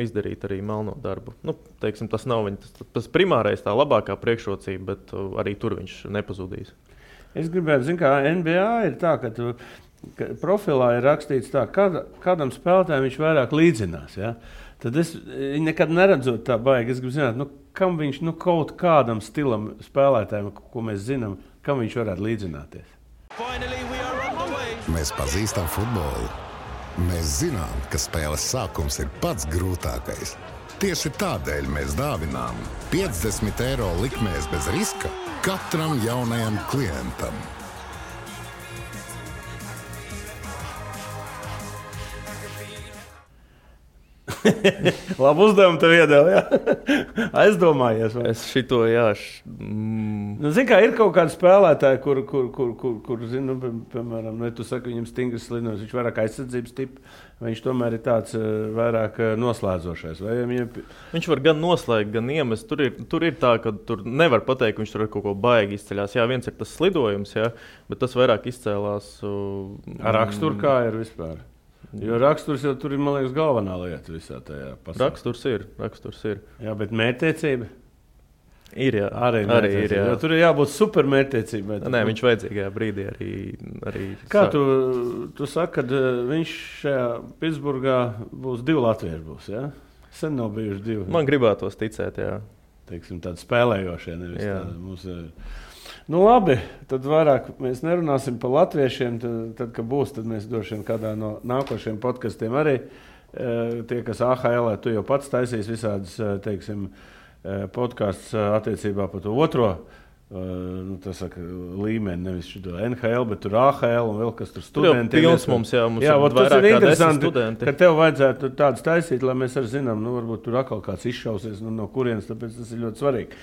izdarīt arī melno darbu. Tas nav tas primārais, tā labākā priekšrocība, bet arī tur viņš nepazudīs. Es gribētu, kā NBA ir tā, ka profilā ir rakstīts tā, kādam spēlētājam viņš vairāk līdzinās. Ja? Tad es nekad neredzot tā baigi. Es gribu zināt, kam viņš kaut kādam stilam spēlētājiem, ko mēs zinām, kam viņš varētu līdzināties. Mēs pazīstam futbolu. Mēs zinām, ka spēles sākums ir pats grūtākais. Tieši tādēļ mēs dāvinām 50 eiro likmēs bez riska katram jaunajam klientam. Labu uzdevumu tev iedēļ, jā. Aizdomājies. Vai? Es šito, jā. Ir kaut kādi spēlētāji, kur piemēram, tu saki, viņam stingrs slidojums, viņš vairāk aizsardzības tipa, vai viņš tomēr ir tāds vairāk noslēdzošais? Viņš var gan noslēgt, gan iemest. Tur ir tā, ka tur nevar pateikt, ka viņš tur ar kaut ko baigi izceļās. Jā, viens ir tas slidojums, jā, bet tas vairāk izcēlās. Ar raksturu kā ir vispār? Jo raksturs jau tur ir, man liekas, galvenā lieta visā tajā pasaulē. Raksturs ir. Jā, bet mērķtiecība? Ir, jā. Arī ir, jā. Jo tur ir jābūt super mērķtiecībai. Nē, viņš vajadzīgajā brīdī arī Kā tu saki, kad viņš šajā Pitsburgā būs 2 latvieši būs, jā? Sen nav bijuši 2. Man gribētos ticēt, jā. Teiksim, tādi spēlējošie, nevis tādi mūsu... labi, tad vairāk mēs nerunāsim par latviešiem. Tad kad būs, tad mēs droši vien kādā no nākošiem podkastiem arī tie, kas AHL, tu jau pats taisīs visādas, teiksim, podkasts attiecībā par to otro līmeni, nevis šito NHL, bet tur AHL un vēl kas tur studentiem. Mums ir interesanti, ka tev vajadzētu tādas taisīt, lai mēs arī zinām, varbūt tur atkal kāds izšausies no kurienes, tāpēc tas ir ļoti svarīgi.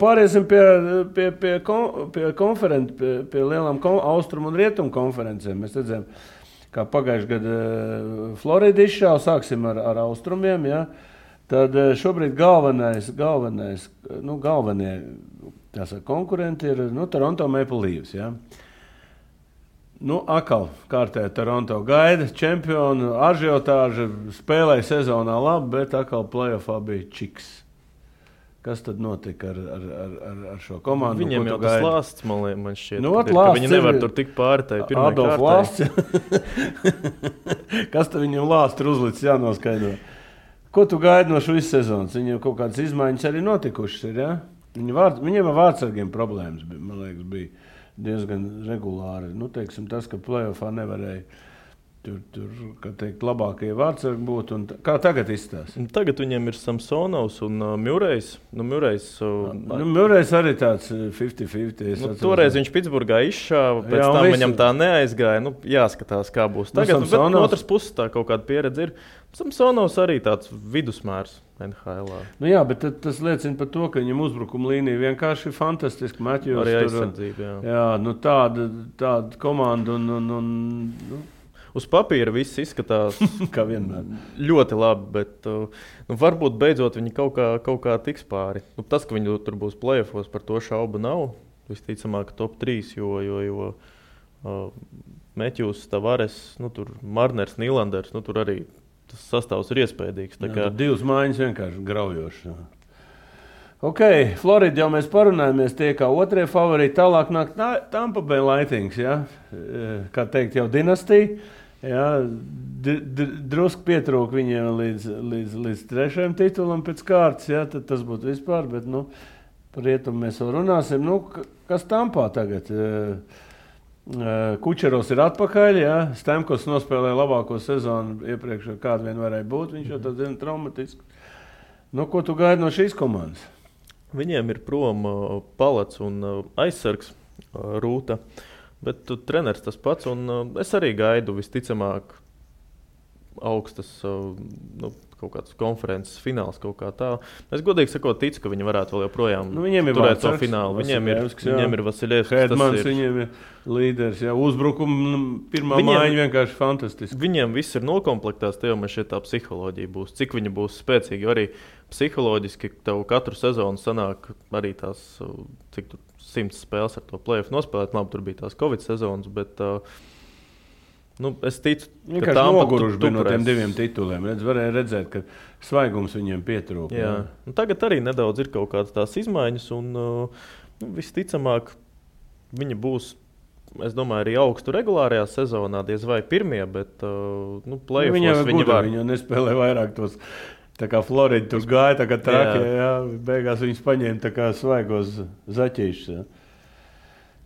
Pāriesim pie konferenci, pie lielām austrumu un rietumu konferencēm. Mēs redzējām, kā pagājuši gadu Florida izšāva, sāksim ar austrumiem, ja? Tad šobrīd galvenie konkurenti ir Toronto Maple Leafs. Ja? Atkal kārtēji Toronto gaida čempionu, ažiotāža, spēlēja sezonā labi, bet atkal playoffā bija čiks. Kas tad notika ar šo komandu? Viņiem jau tas lāsts, man šķiet, ka viņi nevar tur tikt pāri tai pirmai kārtai. Adolf Lāsts. Kas tad viņam lāsts ir uzlicis, jānoskaidro? Ko tu gaidi no šīs sezonas? Viņiem kaut kādas izmaiņas arī notikušas ir, ja? Viņiem ar vārdsargiem problēmas, man liekas, bija diezgan regulāri. Tas, ka playoffā nevarēja tur kā teikt, labākie vārdsargi būt. Kā tagad izstāsta? Tagad viņiem ir Samsonovs un Murrejs. Murrejs arī tāds 50-50. Toreiz viņš Pitsburgā izšāva, pēc tam viņam tā neaizgāja. Jāskatās, kā būs tagad. Bet no otras puses tā kaut kāda pieredze ir. Samsonovs arī tāds vidusmērs NHL. Jā, bet tas liecina par to, ka viņam uzbrukuma līnija vienkārši ir fantastiski. Matjos, arī aizsardzība, jā. Tāda komanda uz papīra viss izskatās kā vienmēr. Ļoti labi, bet varbūt beidzot viņi kaut kā tiks pāri. Tas, ka viņi tur būs playoffos, par to šaubu nav. Visticamāk, top 3, jo Matjus, Tavares, tur Marners, Nylanders, tur arī tas sastāvs ir iespējīgs. Tur 2 mājiņas vienkārši graujoši. Florida jau mēs parunājamies, tie kā otrie favorīti, tālāk nāk Tampa Bay Lightnings, ja? Kā teikt, jau dinastija. Jā, drusku pietrūka viņiem līdz 3. titulam pēc kārtas, jā, tad tas būtu vispār, bet, par rietumu mēs vēl runāsim. Kas Tampā tagad? Kučerovs ir atpakaļ, jā, Stamkos nospēlēja labāko sezonu iepriekš, kāda vien varēja būt, viņš jau tad traumatiski. Ko tu gaidi no šīs komandas? Viņiem ir prom Palats un aizsargs Rūta. Bet treneris tas pats, un es arī gaidu visticamāk augstas kaut kādas konferences fināls kaut kā tā. Es godīgi sakot ticu, ka viņi varētu vēl joprojām turēt to finālu. Viņiem ir Vasiljevskis. Hedmans, viņiem ir līderis. Uzbrukuma pirmā mājiņa vienkārši fantastiski. Viņiem viss ir nokomplektēts, te jau man šeit tā psiholoģija būs. Cik viņi būs spēcīgi, arī psiholoģiski tev katru sezonu sanāk arī tās, cik tur 100 spēles ar to play-off nospēlēt. Labi, tur bija tās Covid sezonas, bet es ticu, ka Tampa noguruši bija no tiem 2 tituliem. Varēja redzēt, ka svaigums viņiem pietrūka. Jā. Tagad arī nedaudz ir kaut kādas tās izmaiņas, un visticamāk viņi būs, es domāju, arī augstu regulārajā sezonā, diez vai pirmie, bet play-offos viņi var. Viņi nespēlē vairāk tos. Tā kā Florida tur gāja, tā kā trakie, jā, beigās viņus paņēma tā kā svaigos zaķīšus. Jā.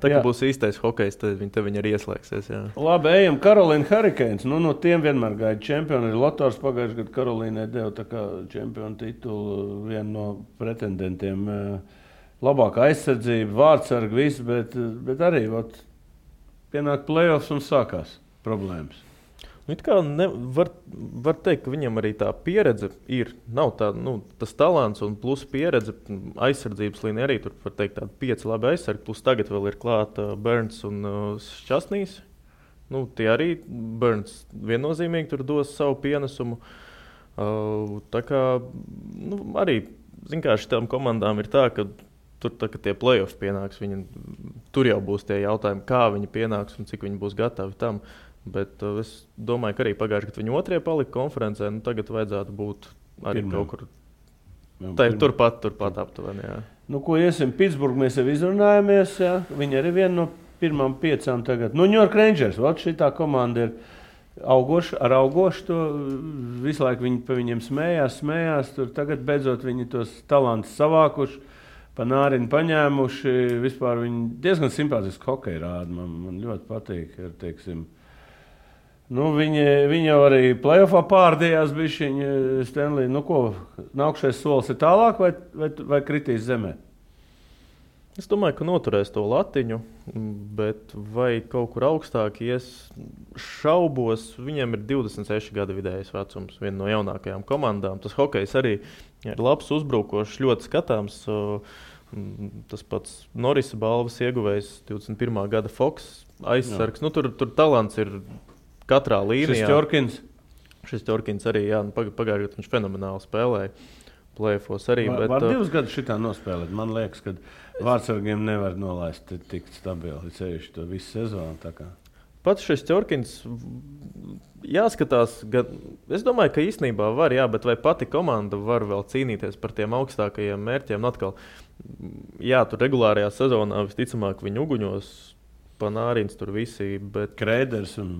Tā kā būs īstais hokejs, tad viņi arī ieslēgsies. Jā. Labi, ejam Carolina Hurricanes. No tiem vienmēr gaida čempioni. Ir Lotors pagājuši gadu Karolīnai deva tā kā čempionu titulu vienu no pretendentiem. Labākā aizsardzība, vārdsarga, viss, bet arī pienāk play-offs un sākās problēmas. Var teikt, ka viņam arī tā pieredze ir. Nav tā, tas talants un plus pieredze. Aizsardzības līnija arī tur var teikt tādi 5 labi aizsargi. Plus tagad vēl ir klāta Burns un Šķasnīs. Tie arī Burns viennozīmīgi tur dos savu pienesumu. Tā kā arī, kā šitām komandām ir tā, ka tur, kad tie play-offs pienāks, tur jau būs tie jautājumi, kā viņi pienāks un cik viņi būs gatavi tam. Bet es domāju, ka arī pagājuši, kad viņi 2. palika konferencē, tagad vajadzētu būt arī kaut kur turpat aptuveni. Ko iesim? Pitsburgu mēs jau izrunājamies. Jā. Viņi arī viena no pirmām 5 tagad. New York Rangers, šitā komanda ir augoša to. Visu laiku viņi pa viņiem smējās. Tur tagad beidzot viņi tos talantus savākuši, pa nāriņu paņēmuši. Vispār viņi diezgan simpātiski hokeju rāda. Man ļoti patīk, teiksim. Viņi jau arī play-offā pārdījās bišķiņi Stanley. Nākšais solis ir tālāk vai kritīs zemē? Es domāju, ka noturēs to latiņu, bet vai kaut kur augstāk ies šaubos. Viņiem ir 26 gadu vidējais vecums, viena no jaunākajām komandām. Tas hokejs arī ir labs, uzbrukošs, ļoti skatāms. Tas pats Norisa balvas ieguvējs 21. gada Fox aizsargs. Tur talants ir katrā līnijā. Šestjorkins arī, pagājušajā gadā viņš fenomenāli spēlēja. Play-offos arī. Var 2 gadus šitā nospēlēt. Man liekas, ka vārdsargiem nevar nolaist tik stabili ceļš to visu sezonu. Pats Šestjorkins jāskatās. Es domāju, ka īstenībā var, bet vai pati komanda var vēl cīnīties par tiem augstākajiem mērķiem? Atkal, tur regulārajā sezonā visticamāk viņi uguņos. Panārins tur visi, bet Kreiders un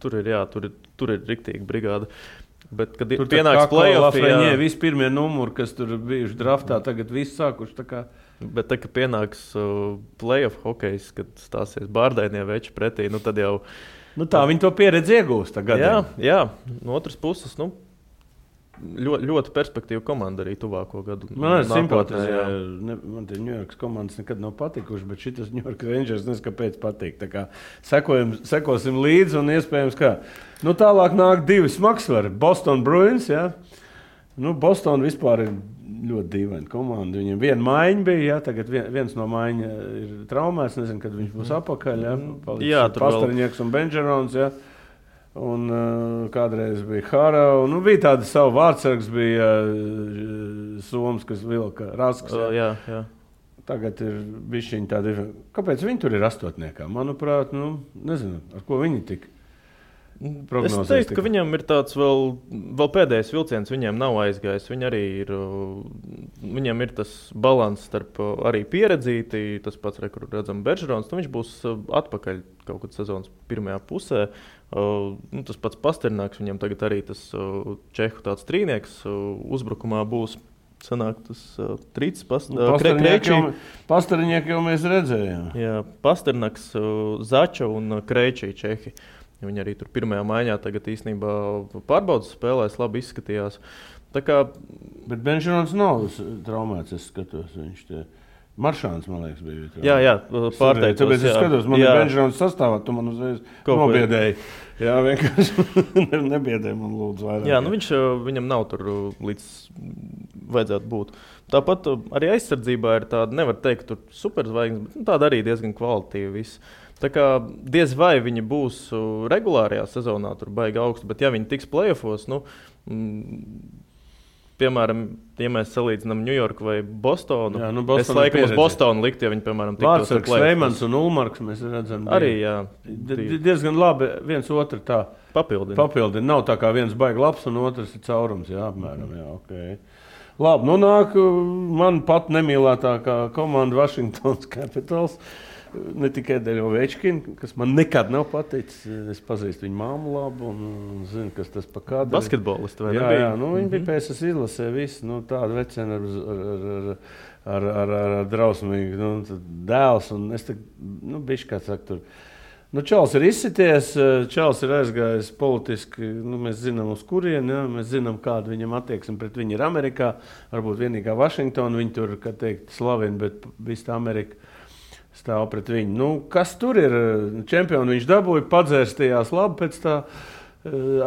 tur ir riktīgi brigāda. Bet kad tur pienāks play-off, visi pirmie numuri, kas tur bijuši draftā, tagad visi sākuši tā kā. Bet kad pienāks play-off hokejs, kad stāsies bārdainie veči pretī, tad jau tā viņi to pieredzi iegūst tagad. Jā, no otras puses, ļoti perspektīva komanda arī tuvāko gadu. Man ir simpātija. Man tie New York komandas nekad nav patikuši, bet šitas New York Rangers nezinu, kāpēc patīk. Tā kā sekosim līdzi un iespējams, kā. Tālāk nāk 2 smagsvari. Boston Bruins, jā. Boston vispār ir ļoti dīvaina komanda. Viņiem viena maiņa bija, jā. Tagad viens no maiņa ir traumēts. Nezinu, kad viņš būs apakaļ, jā. Pastariņieks un Benžerons, jā. Un kādreiz bija Hara, un bija tāda savu vārdsargs, bija Soms, kas vilka Rasks. Jā. Tagad ir bišķiņi tādi. Kāpēc viņi tur ir astotniekā? Manuprāt, nezinu, ar ko viņi tik. prognozēs? Es teiktu, ka viņam ir tāds vēl pēdējais vilciens, viņiem nav aizgājis. Viņam ir tas balans starp arī pieredzīti, tas pats, kur redzam Beržerons, viņš būs atpakaļ kaut kad sezonas pirmajā pusē. Tas pats Pasternāks, viņam tagad arī tas čehu tāds trīnieks uzbrukumā būs. Sanāk tas Trīts, Pasterņieki jau mēs redzējām. Jā, Pasternāks, Zača un Krejčī čehi. Viņi arī tur pirmajā maiņā tagad īstenībā pārbaudas spēlēs, labi izskatījās. Bet Benžerons nav traumēts, es skatos. Viņš Maršāns, man liekas, bija. Jā, pārteicos. Tāpēc es skatos, man ir Benžerons sastāvā, tu man uzreiz nobiedēji. Jā, vienkārši nebiedēji man lūdzu vairāk. Jā, viņam nav tur līdz vajadzētu būt. Tāpat arī aizsardzībā ir tāda, nevar teikt, tur superzvaigznes, bet tāda arī diezgan kvalitatīva viss. Tā kā diez vai viņi būs regulārajā sezonā, tur baigi augstu, bet ja viņi tiks play-offos, piemēram, ja mēs salīdzinām Ņujorku vai Bostonu, es laikam uz Bostonu liktu, ja viņi, piemēram, tiktos ar play-offos. Veimans un Ulmarks mēs redzam. Arī, jā. Diezgan labi viens otru tā papildina. Nav tā kā viens baigi labs un otrs ir caurums, jā, apmēram, jā, okei. Labi, nāk man pat nemīlētākā komanda Washington Capitals. Ne tikai dēļ Ovečkina, kas man nekad nav paticis. Es pazīstu viņu māmu labu un zinu, kas tas pa kādu. Basketbolisti vai jā, nebija? Jā, viņi bija PSS izlasē visi, tādu veceni ar drausmīgu dēls. Un es bišķi kā saka tur. Čals ir izsities, Čals ir aizgājis politiski, mēs zinām uz kurieni, mēs zinām, kāda viņam attieksme pret viņu ir Amerikā. Varbūt vienīgā Vašingtona, viņi tur, kā teikt, slavina, bet visa Amerika stāv pret viņu. Kas tur ir? Čempionu viņš dabūja, padzērstījās labi pēc tā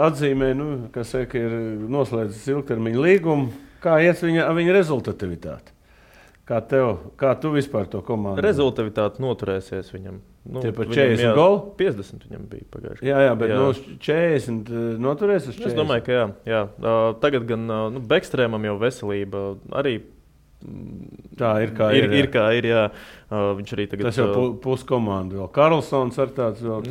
atzīmē, kas saka, ir noslēdzis ilgtermiņa līgumu. Kā iet viņa rezultativitāte? Kā tu vispār to komandu? Rezultatīvitāte noturēsies viņam. Tie par 40 golu? 50 viņam bija pagājuši. Jā, bet 40 noturēs uz 40? Es domāju, ka jā. Tagad gan Bekstrēmam jau veselība arī. Tā ir kā ir. Ir kā ir, jā. Viņš arī tagad. Tas jau puskomanda vēl. Karlsons ar tāds vēl.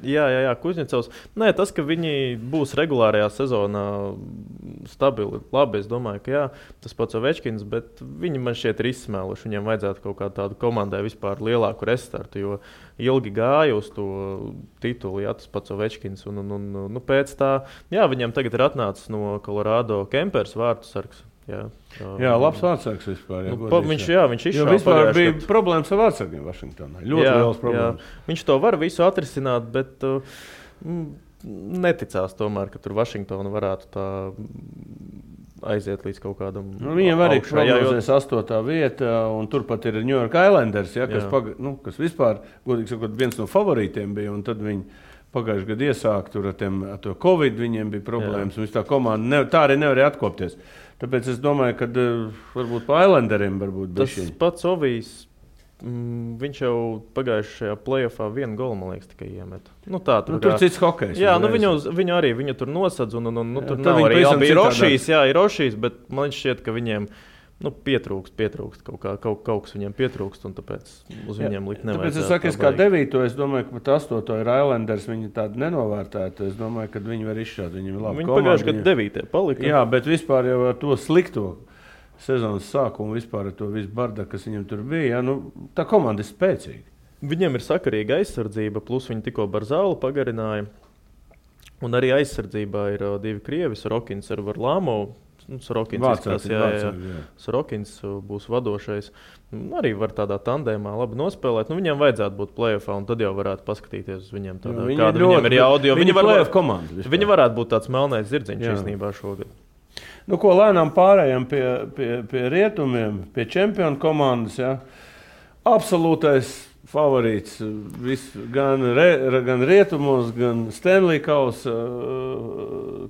Jā, Kuzņecovs. Nē, tas, ka viņi būs regulārajā sezonā stabili, labi, es domāju, ka jā. Tas pats Ovečkins, bet viņi man šķiet ir izsmēluši. Viņiem vajadzētu kaut kā tādu komandai vispār lielāku restartu, jo ilgi gāja uz to titulu, jā, tas pats Ovečkins. Un pēc tā, jā, viņam tagad ir atnācis no Colorado Kempers vārtu sargs. Jā, labs vārdsargs vispār. Viņš izšāva. Vispār bija problēmas ar vārdsargiem Vašingtonā. Ļoti liels problēmas. Jā. Viņš to var visu atrisināt, bet neticās tomēr, ka tur Vašingtona varētu tā aiziet līdz kaut kādam viņiem arī prognozēs 8. vieta, un turpat ir New York Islanders, kas vispār, godīgi sakot, viens no favorītiem bija, un tad viņi pagājuši gadu iesāk tur ar to Covid, viņiem bija problēmas, un tā komanda tā arī nevarēja atkopties. Tāpēc es domāju, ka varbūt pa Islanderiem varbūt bišķiņi. Tas pats Ovijs, viņš jau pagājušajā play-offā 1 golu, man liekas, tikai iemet. Tur cits hokejs. Jā, viņu tur nosadz, un tur nav arī bija Rošīs, bet man šķiet, ka viņiem pietrūkst kaut kas viņiem pietrūkst, un tāpēc uz viņiem likt nevajadzētu. Tāpēc es saku, kā 9. es domāju, ka pat 8. ir Islanders, viņi tādi nenovērtēti. Es domāju, ka viņi var izšķirt, viņi ir labi. Viņi pagājuši gadu 9. palika. Jā, bet vispār jau ar to slikto sezonas sākumu, vispār ar to visu bardaku, kas viņam tur bija, tā komanda ir spēcīga. Viņiem ir sakarīga aizsardzība, plus viņi tikko Barzālu pagarināja. Un arī aizsardzībā ir 2 krievi, Sorokins ar Varlamovu. Sorokins būs vadošais. Arī var tādā tandēmā labi nospēlēt. Viņam vajadzētu būt play-offā, un tad jau varētu paskatīties uz viņiem. Kāda viņiem ir jauda. Viņi varētu būt tāds melnais zirdziņš īstenībā šogad. Ko lēnām pārējām pie rietumiem, pie čempionu komandas. Ja? Absolūtais favorīts gan rietumos, gan Stanley Kausa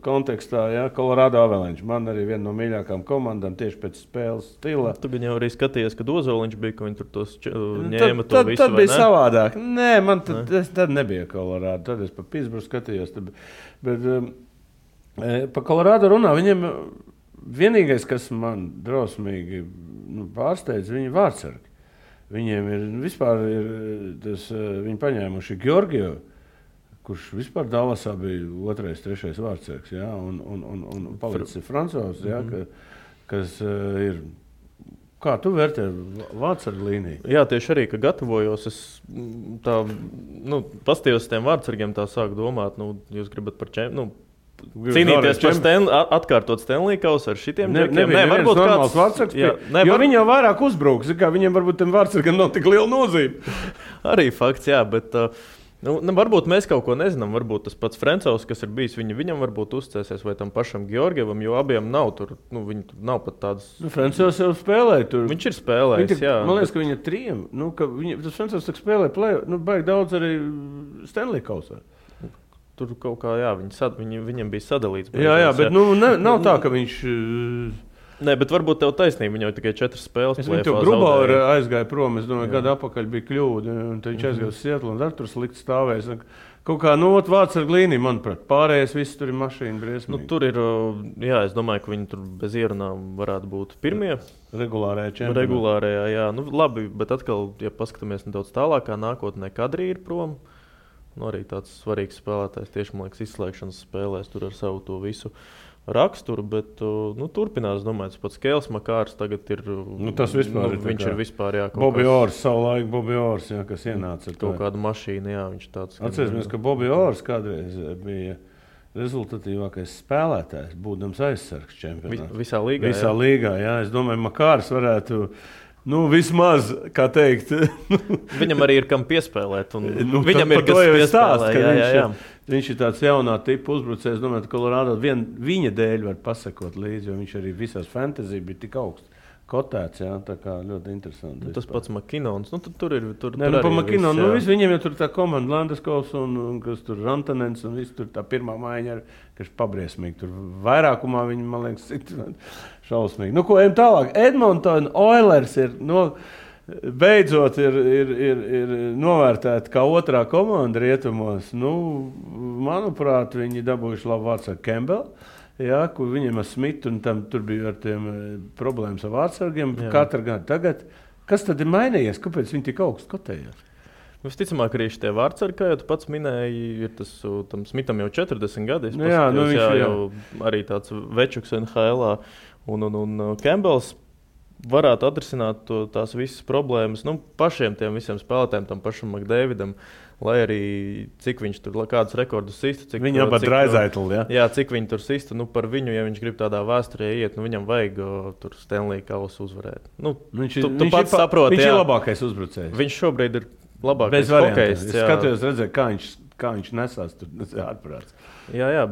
kontekstā, Colorado Avalanche. Man arī viena no mīļākām komandām tieši pēc spēles stila. Tu gan jau arī skatījies, ka Ozoliņš bija, ka viņi tur tos ņēma to visu, tad bija savādāk. Nē, man tad nebija Colorado. Tad es pa Pittsburghu skatījos. Bet pa Colorado runā, viņiem vienīgais, kas man drausmīgi pārsteidz, viņi vārdsargi. Viņiem ir vispār, viņi paņēmuši Georgiju, kurš vispār Dallasā bija 2., 3. vārdsargs, ja, un palicis Francovs, ja, kas ir. Kā tu vērtē vārdsargu līniju? Jā, tieši arī, ka gatavojos, es tā, pastījos tiem vārdsargiem, tā sāku domāt, jūs gribat par cīnīties par atkārtot Stanley Kausu ar šitiem džekiem. Nē, varbūt kāds vārdsargs, jo viņi jau vairāk uzbruks, viņiem varbūt tiem vārdsargiem nav tik liela nozīme. Arī fakts, jā, bet varbūt mēs kaut ko nezinām, varbūt tas pats Frencovs, kas ir bijis, viņam varbūt uzcēsies vai tam pašam Georgievam, jo abiem nav tur, viņi tur nav pat tādas... Frencovs jau spēlēja tur. Viņš ir spēlējis, jā. Man liekas, ka viņa 3, tas Frencovs tak spēlēja play, baigi daudz arī Stanley Kausā. Tur kaut kā, jā, viņam bija sadalīts. Jā, bet nav tā, ka viņš... Nē, bet varbūt tev taisnība, viņam jau tikai 4 spēles. Es viņu Grubauer aizgāju prom, es domāju, gadu apakaļ bija kļūda, un tad viņš aizgāja uz Sietlu, un ar tur slikt stāvēs. Kaut kā, vārdsargu līnija, manuprāt, pārējais viss tur ir mašīna briesmīgi. Tur ir, jā, es domāju, ka viņi tur bez ierunām varētu būt pirmie. Regulārajā čempionātā. Regulārajā, jā. Labi, bet atkal, ja paskatāmies nedaudz tālākā nākotnē, Kadri ir prom. Arī tāds svarīgs spēlētājs, tieši, man liekas, izslēgšanas spēlēs tur ar savu to visu raksturu, bet turpinās, domāju, tas pats Kēls Makārs tagad ir... tas vispār ir viņš ir vispār, jā, Bobby Orrs, savulaik Bobby Orrs, jā, kas ienāca ar kaut kādu mašīnu, jā, viņš tāds... Atcerēsimies, ka Bobby Orrs kādreiz bija rezultatīvākais spēlētājs, būdams aizsargs čempionātā. Visā līgā, Visā līgā, jā. Es domāju, Makārs varētu... vismaz, kā teikt. Viņam arī ir kam piespēlēt. Viņam ir kas piespēlēt. Viņš ir tāds jaunā tipa uzbrucējs. Domāju, ka Colorado viņa dēļ var pasakot līdzi, jo viņš arī visās fantasy bija tik augsts kotēts. Jā, tā kā ļoti interesanti. Tas pats McKinnons. Tur ir. Pa McKinnonu. Viņiem jau tur tā komanda Landeskos un kas tur Rantanens un viss tur tā pirmā maiņa, kas pabriesmīgi. Tur vairākumā viņi, man liekas, šausmīgi. Ko ejam tālāk? Edmonton Oilers ir beidzot ir novērtēta kā otrā komanda rietumos. Manuprāt, viņi dabūjuši labu vārdsargu Campbell. Jā, kur viņiem ar Smitu un tur bija ar tiem problēmas ar vārdsargiem. Katru gadu tagad. Kas tad ir mainījies? Kāpēc viņi tik augstu kotējās? Visticamāk, arī šie vārdsargi, kā jau tu pats minēji, ir tam Smitam jau 40 gadi. Viņš jau arī tāds večuks NHL-ā. Un Campbells varētu atrisināt tās visas problēmas pašiem tiem visiem spēlētājiem, tam pašam McDavidam. Lai arī cik viņš tur kādus rekordus sistu. Viņam pat Draisaitl, jā. Jā, cik viņi tur sistu. Par viņu, ja viņš grib tādā vēsturē iet, viņam vajag tur Stanley Kausu uzvarēt. Tu pats saproti, viņš ir labākais uzbrucējs. Viņš šobrīd ir labākais hokejs. Es skatījos, redzēju, kā viņš nesās tur ārprāts. Jā,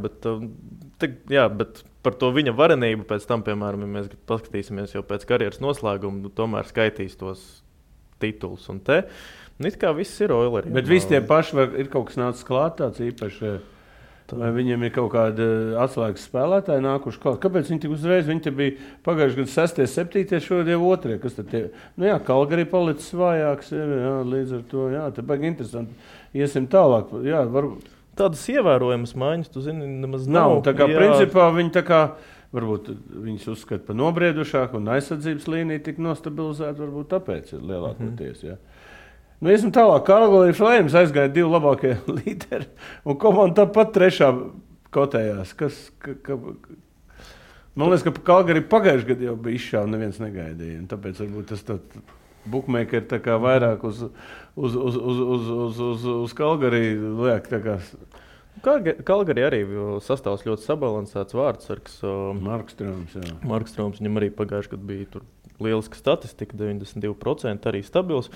bet par to viņa varenību pēc tam, piemēram, ja mēs paskatīsimies jau pēc karjeras noslēguma, tomēr skaitīs tos titulus un te. It kā viss ir Oileri. Bet visi tie paši ir kaut kas nācis klāt tāds īpaši, vai viņiem ir kaut kāda atslēgas spēlētāji nākuši klāt. Kāpēc viņi tik uzreiz? Viņi te bija pagājuši gadu 6., 7., šodien 2. Kas tad tie? Kalgari palicis vājāks, jā, līdz ar to, jā, te baigi interesanti. Iesim tālāk, jā, varbūt. Tādas ievērojamas maiņas, tu zini, nemaz nav. Tā kā principā viņi tā kā, varbūt viņus uzskata par nobriedušāku un aizsardzības līniju tik nostabilizēt, varbūt tāpēc ir lielākoties, jā. Iesim tālāk. Calgary Flames aizgāja 2 labākie līderi. Un komanda tāpat 3. kotējās. Man liekas, ka Calgary pagājuši gadu jau bija izšāva, neviens negaidīja. Un tāpēc varbūt tas bookmakeri tā kā vairāk uz Calgary liek. Calgary arī sastāvs ļoti sabalansēts vārdsargs. Markstroms, jā. Markstroms, viņam arī pagājuši gadu bija tur lieliska statistika, 92%, arī stabils.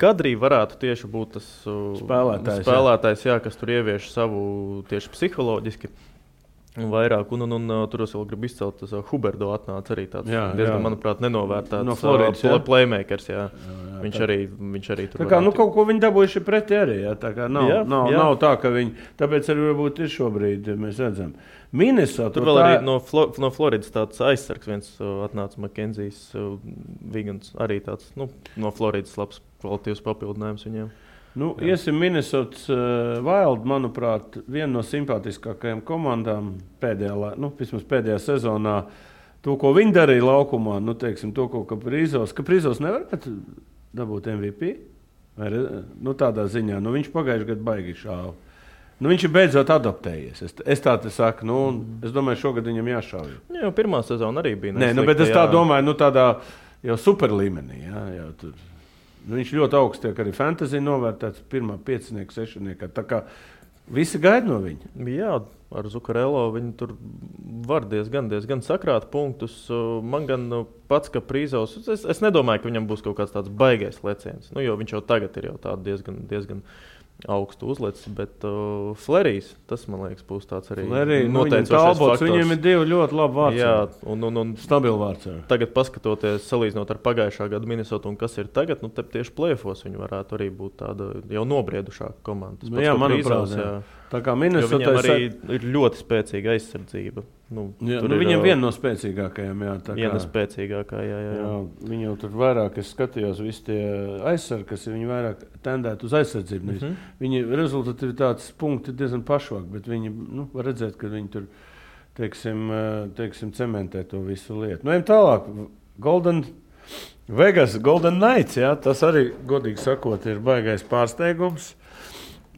Kadrī varētu tieši būt tas spēlētājs, jā, kas tur ievieš savu tieši psiholoģiski vairāk. Un tur es vēl gribu izcelt, tas Huberdo atnāca arī tāds diezgan, manuprāt, nenovērtēts no Floridas, playmakers. Jā. Viņš arī tur tā kā, kaut ko viņi dabūjuši pretī arī. Jā, tā kā nav tā, ka viņi, tāpēc arī varbūt ir šobrīd, mēs redzam. Minnesota. Tur vēl arī no Floridas tāds aizsargs viens atnāca Makenzijs Vigans, arī tāds, no Floridas labs kvalitīvs papildinājums viņiem. Iesim Minnesotas Wild, manuprāt, viena no simpātiskākajām komandām pēdējā sezonā. To, ko viņi darīja laukumā, teiksim, to, ko Kaprizos nevarētu dabūt MVP? Vai, tādā ziņā, viņš pagājuši gadu baigi šāva. Nu, viņš ir beidzot adaptējies. Es tā te saku, es domāju, šogad viņam jāšauj. Jā, pirmā sezona arī bija neslikta. Nē, bet es tā domāju, tādā jau super līmenī. Jā, tur. Viņš ļoti augsts tiek arī fantasy novērtēts pirmā 5, 6. Tā kā visi gaida no viņa. Jā, ar Zukarelo viņi tur var diezgan sakrāt punktus. Man gan pats, ka Prīzovs, es nedomāju, ka viņam būs kaut kāds tāds baigais leciens. Jo viņš jau tagad ir jau diezgan augstu uzlicis, bet Flerijs, tas, man liekas, būs tāds arī noteicošais faktors. Viņiem ir 2 ļoti labi vārds. Jā, un stabili vārds. Tagad paskatoties, salīdzinot ar pagājušā gada Minnesota un kas ir tagad, tieši play-offos viņi varētu arī būt tāda jau nobriedušāka komanda. Jā, manuprāt, tā kā Minnesota viņam arī ir ļoti spēcīga aizsardzība. Viņam viena no spēcīgākajām. Viena spēcīgākā, jā. Viņi jau tur vairāk, es skatījos, visi tie aizsargi, kas viņi vairāk tendētu uz aizsardzību. Viņi rezultatīvitātes punkti diezgan pašvāk, bet viņi var redzēt, ka viņi tur, teiksim, cementē to visu lietu. Ejam tālāk. Vegas Golden Knights, tas arī, godīgi sakot, ir baigais pārsteigums.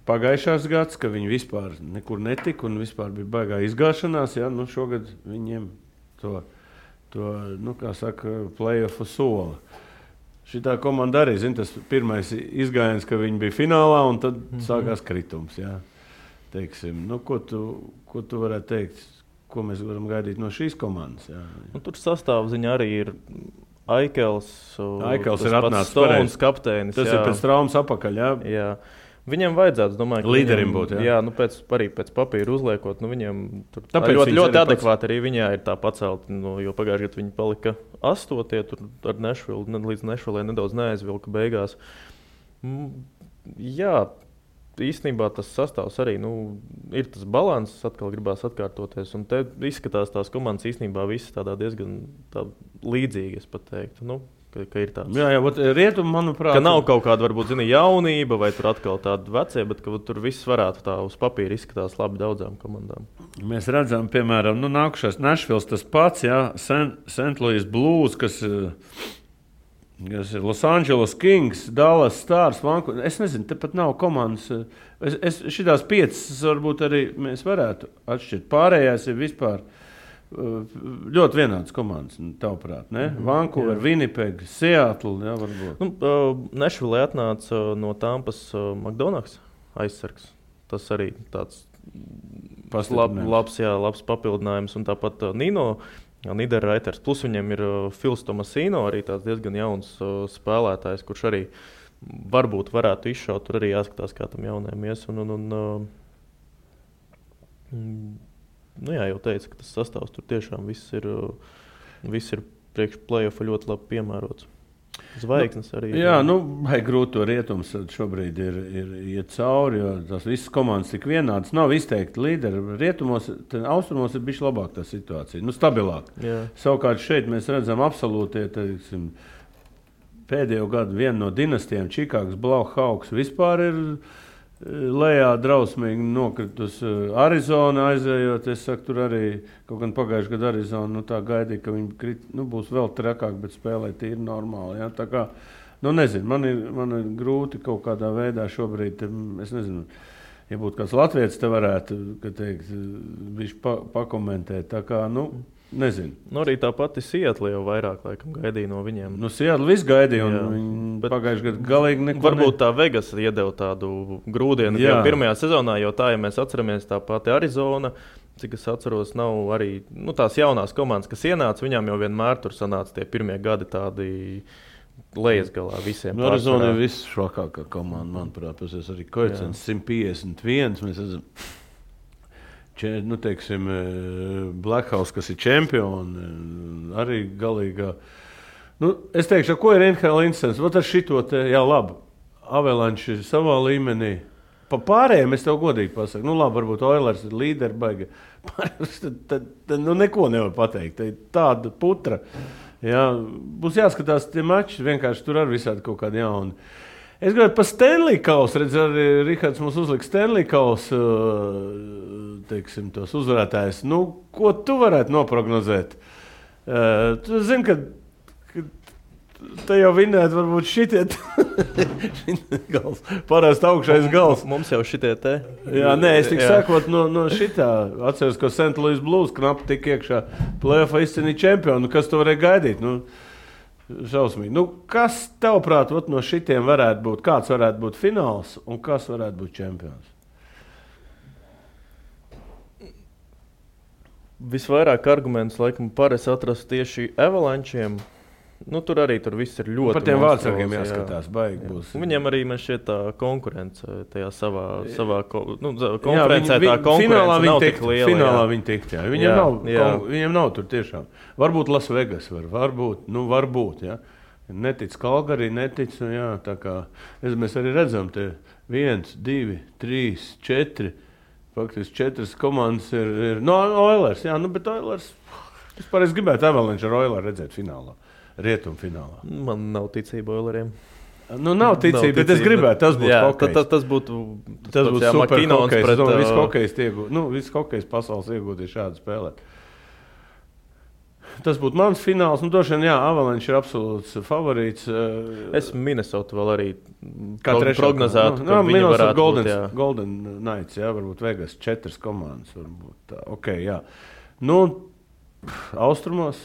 Pagājušās gads, ka viņi vispār nekur netika un vispār bija baigā izgāšanās, šogad viņiem to kā saka, play-offu sola. Šitā komanda arī, tas pirmais izgājiens, ka viņi bija finālā un tad sākās kritums, Teiksim, ko tu varētu teikt, ko mēs varam gaidīt no šīs komandas, Tur sastāvziņa arī ir Aikels ir atnācis Stones kapteinis. Tas ir pēc traumas apakaļ, Jā. Viņam vajadzētu, domāju, līderim būt. Jā, arī pēc papīra uzliekot, viņam tur ļoti adekvāti arī viņā ir tā pacelt, jo pagājušajā gadā viņi palika 8, tur ar Nashville, līdz Nashville nedaudz neaizvilka beigās. Jā, īstenībā tas sastāvs arī, ir tas balans, atkal gribās atkārtoties, un te izskatās tās komandas īstenībā visas tādā diezgan līdzīgi, es pat teiktu, ka ir tāds. Jā, rietum, manuprāt. Ka nav kaut kāda, varbūt, jaunība vai tur atkal tāda vecie, bet ka tur viss varētu tā uz papīra izskatās labi daudzām komandām. Mēs redzam, piemēram, nākušais Nashville tas pats, St. Louis Blues, kas ir Los Angeles Kings, Dallas Stars, Vancouver. Es nezinu, tepat nav komandas. Šitās 5 varbūt arī mēs varētu atšķirt. Pārējās ir vispār ļoti vienāds komandas, tavuprāt, ne? Vancouver, Winnipeg, Seattle, varbūt. Nashville atnāca no Tampas McDonald's aizsargs. Tas arī tāds labs papildinājums. Un tāpat Nino Niederreiters, plus viņam ir Phils Tomasino, arī tāds diezgan jauns spēlētājs, kurš arī varbūt varētu izšaut. Tur arī jāskatās, kā tam jaunajam ies. Jā, jau teicu, ka tas sastāvs tur tiešām viss ir priekš play-offa ļoti labi piemērots. Zvaigznes arī. Jā, vai grūti to rietums šobrīd ir iet cauri, jo tās visas komandas tik vienādas. Nav izteikti līderi. Rietumos, austrumos ir bišķi labāk tā situācija, stabilāk. Jā. Savukārt šeit mēs redzam absolūti, teiksim, pēdējo gadu vienu no dinastijām, Čikāgas Blackhawks vispār ir lejā drausmīgi nokritus. Arizona aizējot, es saku, tur arī kaut gan pagājušajā gadā Arizona tā gaidīja, ka viņi būs vēl trakāk, bet spēlē tīri normāli. Tā kā, nezinu, man ir grūti kaut kādā veidā šobrīd, es nezinu, ja būtu kāds latvietis, te varētu, viņš pakomentēt. Tā kā, nezinu. Arī tā pati Seattle jau vairāk laikam gaidīja no viņiem. Seattle viss gaidīja, un viņi pagājušajā gadā galīgi neko. Varbūt tā Vegas iedeva tādu grūdienu jau pirmajā sezonā, jo tā, ja mēs atceramies, tā pati Arizona, cik es atceros, nav arī tās jaunās komandas, kas ienāca, viņām jau vienmēr tur sanāca tie pirmie gadi tādi lejas galā visiem. Arizona ir visšvakākā komanda, manuprāt, tas arī koeficients 151, mēs esam. Teiksim, Blackhawks, kas ir čempioni, arī galīgā. Es teikšu, ko ir NHL interesants? Ar šito te, labi, Avalanche ir savā līmenī. Pa pārējiem es tev godīgi pasaku. Labi, varbūt Oilers ir līderi, baigi. Tad neko nevar pateikt. Tāda putra. Būs jāskatās tie mači, vienkārši tur ar visādi kaut kādi jauni. Es gribētu par Stanley Kausu, arī Rihards mums uzlika Stanley Kausu, teiksim, tos uzvarētājus. Ko tu varētu noprognozēt? Tu zini, ka Te jau vinēt, varbūt šitie gals. Parasti augšais gals. Mums jau šitie te. Jā, nē, es tik sakot no šitā. Atceros, ka St. Louis Blues knapi tik iekšā play-offā izcīnīja čempionu. Kas to varēja gaidīt? Šausmīgi. Kas tavuprāt no šitiem varētu būt? Kāds varētu būt fināls un kas varētu būt čempions? Visvairāk argumentus laikam parasti atrast tieši Avalančiem. Tur arī viss ir ļoti. Par tiem vārdsargiem jāskatās, baigi būs. Viņiem arī man šķiet tā konkurence tajā savā konferencē. Tā konkurence nav tik liela. Finālā viņi tikt, jā. Viņiem nav tur tiešām. Varbūt Las Vegas varbūt, jā. Netic Calgary, netic, jā, tā kā mēs arī redzam te 1, 2, 3, 4, faktiski 4 komandas ir Oilers, jā, bet Oilers, es gribētu Avalanche ar Oilers redzēt finālā. Rietumfinālā. Man nav ticība Oileriem. Nav ticība, bet es gribētu, tas būtu hokejs. Tas būtu super hokejs. Viss hokejs pasaules iegūties šādu spēlēt. Tas būtu mans fināls. Droši vien, Avalanche ir absolūts favorīts. Es Minnesota vēl arī prognozētu, ka viņi varētu būt, Golden Knights, varbūt Vegas 4 komandas. Varbūt tā. Okay, jā. Austrumos.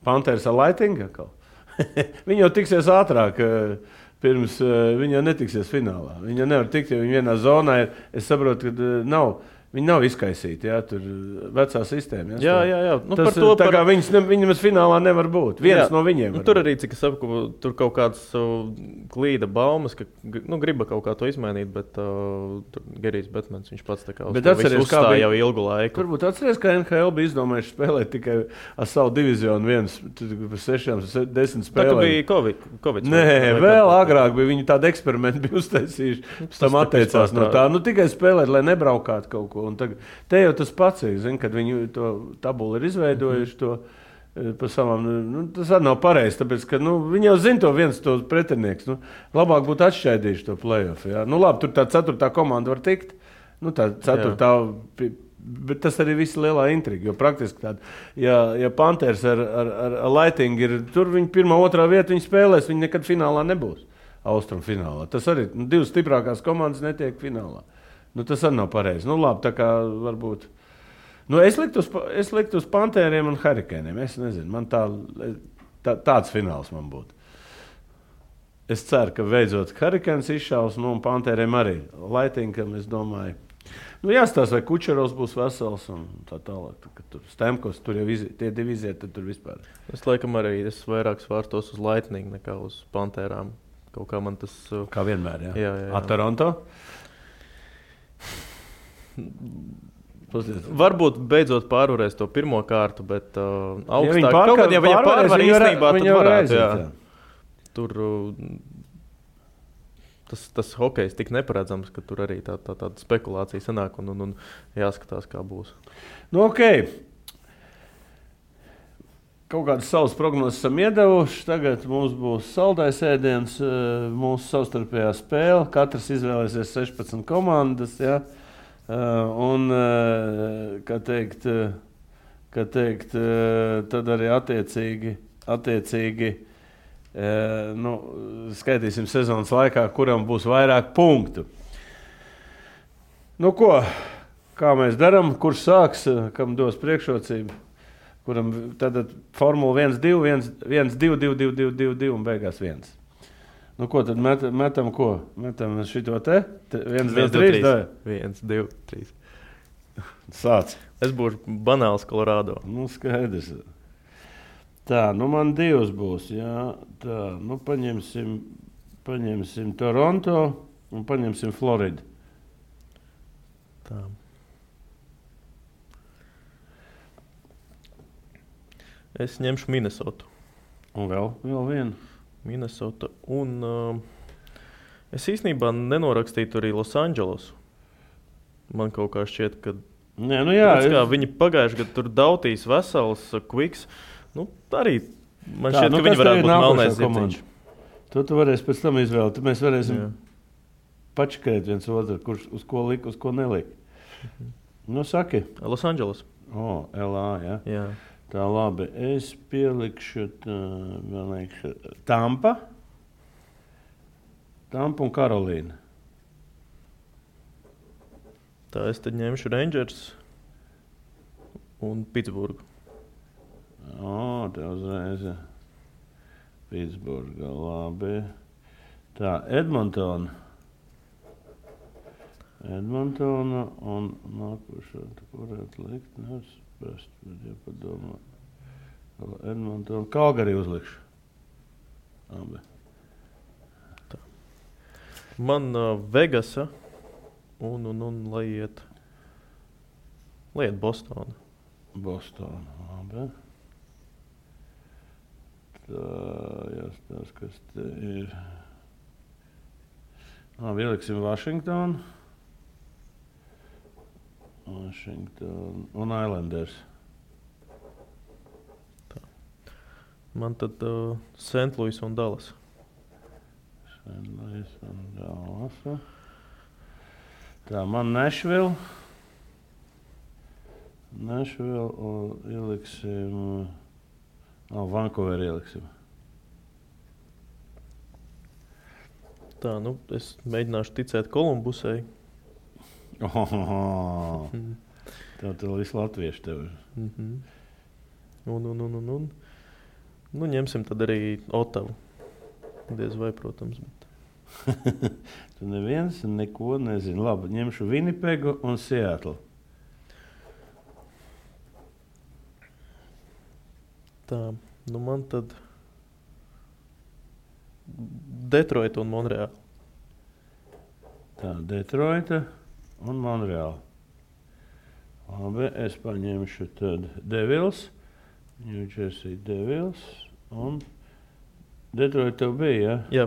Panthers ar Lightning. Viņi jau tiksies ātrāk, pirms viņi jau netiksies finālā. Viņi jau nevar tikt, jo viņi vienā zonā ir. Es saprotu, ka viņi nav izkaisīti, tur vecā sistēma. Jā. Kā viņam finālā nevar būt. Viens no viņiem. Tur arī, cik es saprotu, tur kaut kāds klīda baumas, ka griba kaut kā to izmainīt, bet Gerijs Betmans, viņš pats tā kā uzstāja jau ilgu laiku. Turbūt atceries, ka NHL bija izdomājuši spēlēt tikai ar savu diviziju 6-10 spēlēm. Tā bija Covid. Nē, vēl agrāk bija viņi tādu eksperimentu bija uztaisījuši, pēc tam atteicās no tā. Tikai spēlēt, lai nebraukātu kaut ko. Un te jau tas pats ir, kad viņi to tabulu ir izveidojuši to pa savām, tas arī nav pareizi, tāpēc, ka viņi jau zina to viens to pretinieks. Labāk būtu atšķaidījuši to play-off. Labi, tur tā 4. komanda var tikt, tā 4. Bet tas arī viss lielā intriga, jo praktiski tāda, ja Panthers ar Lightning ir, tur viņi 1. 2. vieta viņi spēlēs, viņi nekad finālā nebūs, Austrum finālā. Tas arī 2 stiprākās komandas netiek finālā. Tas arī nav pareizi. Labi, tā kā varbūt. Es liktu uz Pantēriem un Hurrikaniem. Es nezinu, man tāds fināls man būtu. Es ceru, ka beidzot Hurrikans izšaus, un Pantēriem arī. Lightningam, es domāju. Jāstāsta, vai Kučerovs būs vesels un tā tālāk. Tur Stemkos, tur jau tie divi iziet, tad tur vispār. Es laikam arī vairāk svārstos uz Lightning nekā uz Pantērām. Kaut kā man tas. Kā vienmēr, jā. Jā. Toronto? Varbūt beidzot pārvarēs to pirmo kārtu, bet augstāk. Ja viņa pārvar īstenībā, tad varētu. Tur tas hokejs tik neparedzams, ka tur arī tāda spekulācija sanāk un jāskatās, kā būs. Okay. Kaut kādas savas prognozes esam iedevuši. Tagad mums būs saldais ēdiens, mūsu savstarpējā spēle. Katrs izvēlēsies 16 komandas, jā. Un, kā teikt, tad arī attiecīgi skaitīsim sezonas laikā, kuram būs vairāk punktu. Kā mēs darām, kurš sāks, kam dos priekšrocību, kuram tad formula 1-2, 1-2, 2-2 un beigās 1. Ko tad metam ko? Metam šito te? 1-2-3? 1-2-3. Sāc. Es būšu banāls Colorado. Skaidrs. Tā, man 2 būs, jā. Tā, paņemsim Toronto un paņemsim Floridu. Tā. Es ņemšu Minnesotu. Un vēl vienu. Minnesota. Un es īstenībā nenorakstītu arī Los Angeles. Man kaut kā šķiet, ka viņi pagājuši gadu tur Dautīs vesels, Quiks. Arī man šķiet, ka viņi varētu būt melnais zirdziņš. Tu varēsi pēc tam izvēlēt. Tad mēs varēsim pačakēt viens otru, kurš uz ko lika, uz ko nelika. Saki. Los Angeles. LA, jā. Tā labi, es pielikšu Tampa un Karolīna. Tā es tad ņemšu Rangers un Pitsburgu. Te uzreiz Pitsburga, labi. Tā, Edmontona un nākošā, tu varētu likt, nespēst, bet jāpadomā. Edmontona, Calgary uzlikšu. Labi. Tā. Man Vegasa un lai iet Bostona. Bostona, labi. Tā, jāstās, kas te ir. Ieliksim Washington un Islanders. Tā. Man tad St. Louis un Dallas. St. Louis un Dallas. Tā, man Nashville un ieliksim Vancouver ieliksim. Tā, es mēģināšu ticēt Kolumbusai. Tev visu latviešu tev ir. Un. Ņemsim tad arī Ottavu. Diez vai, protams. Bet... Tu neviens neko nezini. Labi, ņemšu Winnipegu un Seattle. Tā, man tad Detroita un Monreāla. Tā, Detroita un Monreāla. Labi, es paņemšu tad Devils, New Jersey Devils un Detroita tev bija, ja? Jā.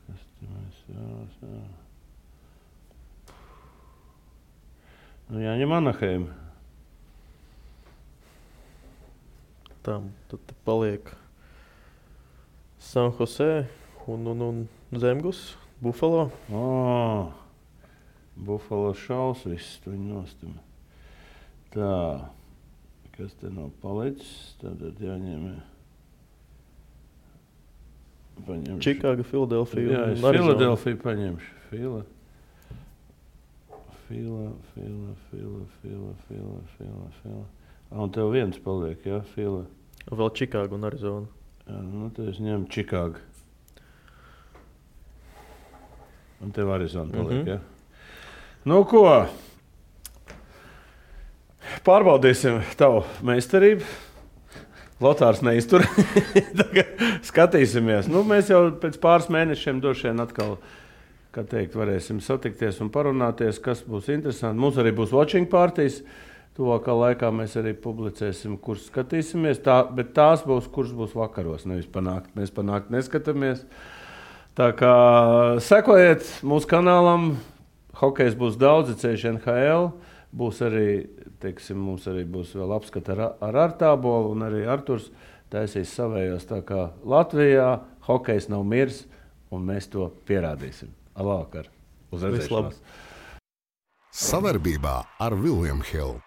Kas te mēs jā. Jāņem Anaheim. Tā, tad paliek San Jose un Zemgus, Buffalo. Buffalo šaus viss, tu viņu nostim. Tā, kas te nav palicis, tad jāņem. Chicago, Philadelphia. Jā, es Philadelphia paņemšu. Fila. Un tev viens paliek, jā, Fila. Vēl Chicago un Arizona. Jā, tad es ņemu Chicago. Un tev Arizona paliek, jā. Ko? Pārbaudīsim tavu meistarību. Lotārs neiztur. Skatīsimies. Mēs jau pēc pāris mēnešiem došiem atkal, kā teikt, varēsim satikties un parunāties, kas būs interesanti. Mums arī būs watching partijas. Tuvākā laikā mēs arī publicēsim, kurus skatīsimies. Bet tās būs, kuras būs vakaros, nevis panākt. Mēs panākt neskatāmies. Tā kā sekojiet mūsu kanālam. Hokejs būs daudz, ceļš NHL. Būs arī, teiksim, mums arī būs vēl apskata ar Artābolu, un arī Arturs taisīs savējos. Tā kā Latvijā hokejs nav mirs, un mēs to pierādīsim. Labvakar! Uz redzēšanos! Savarbībā ar William Hill.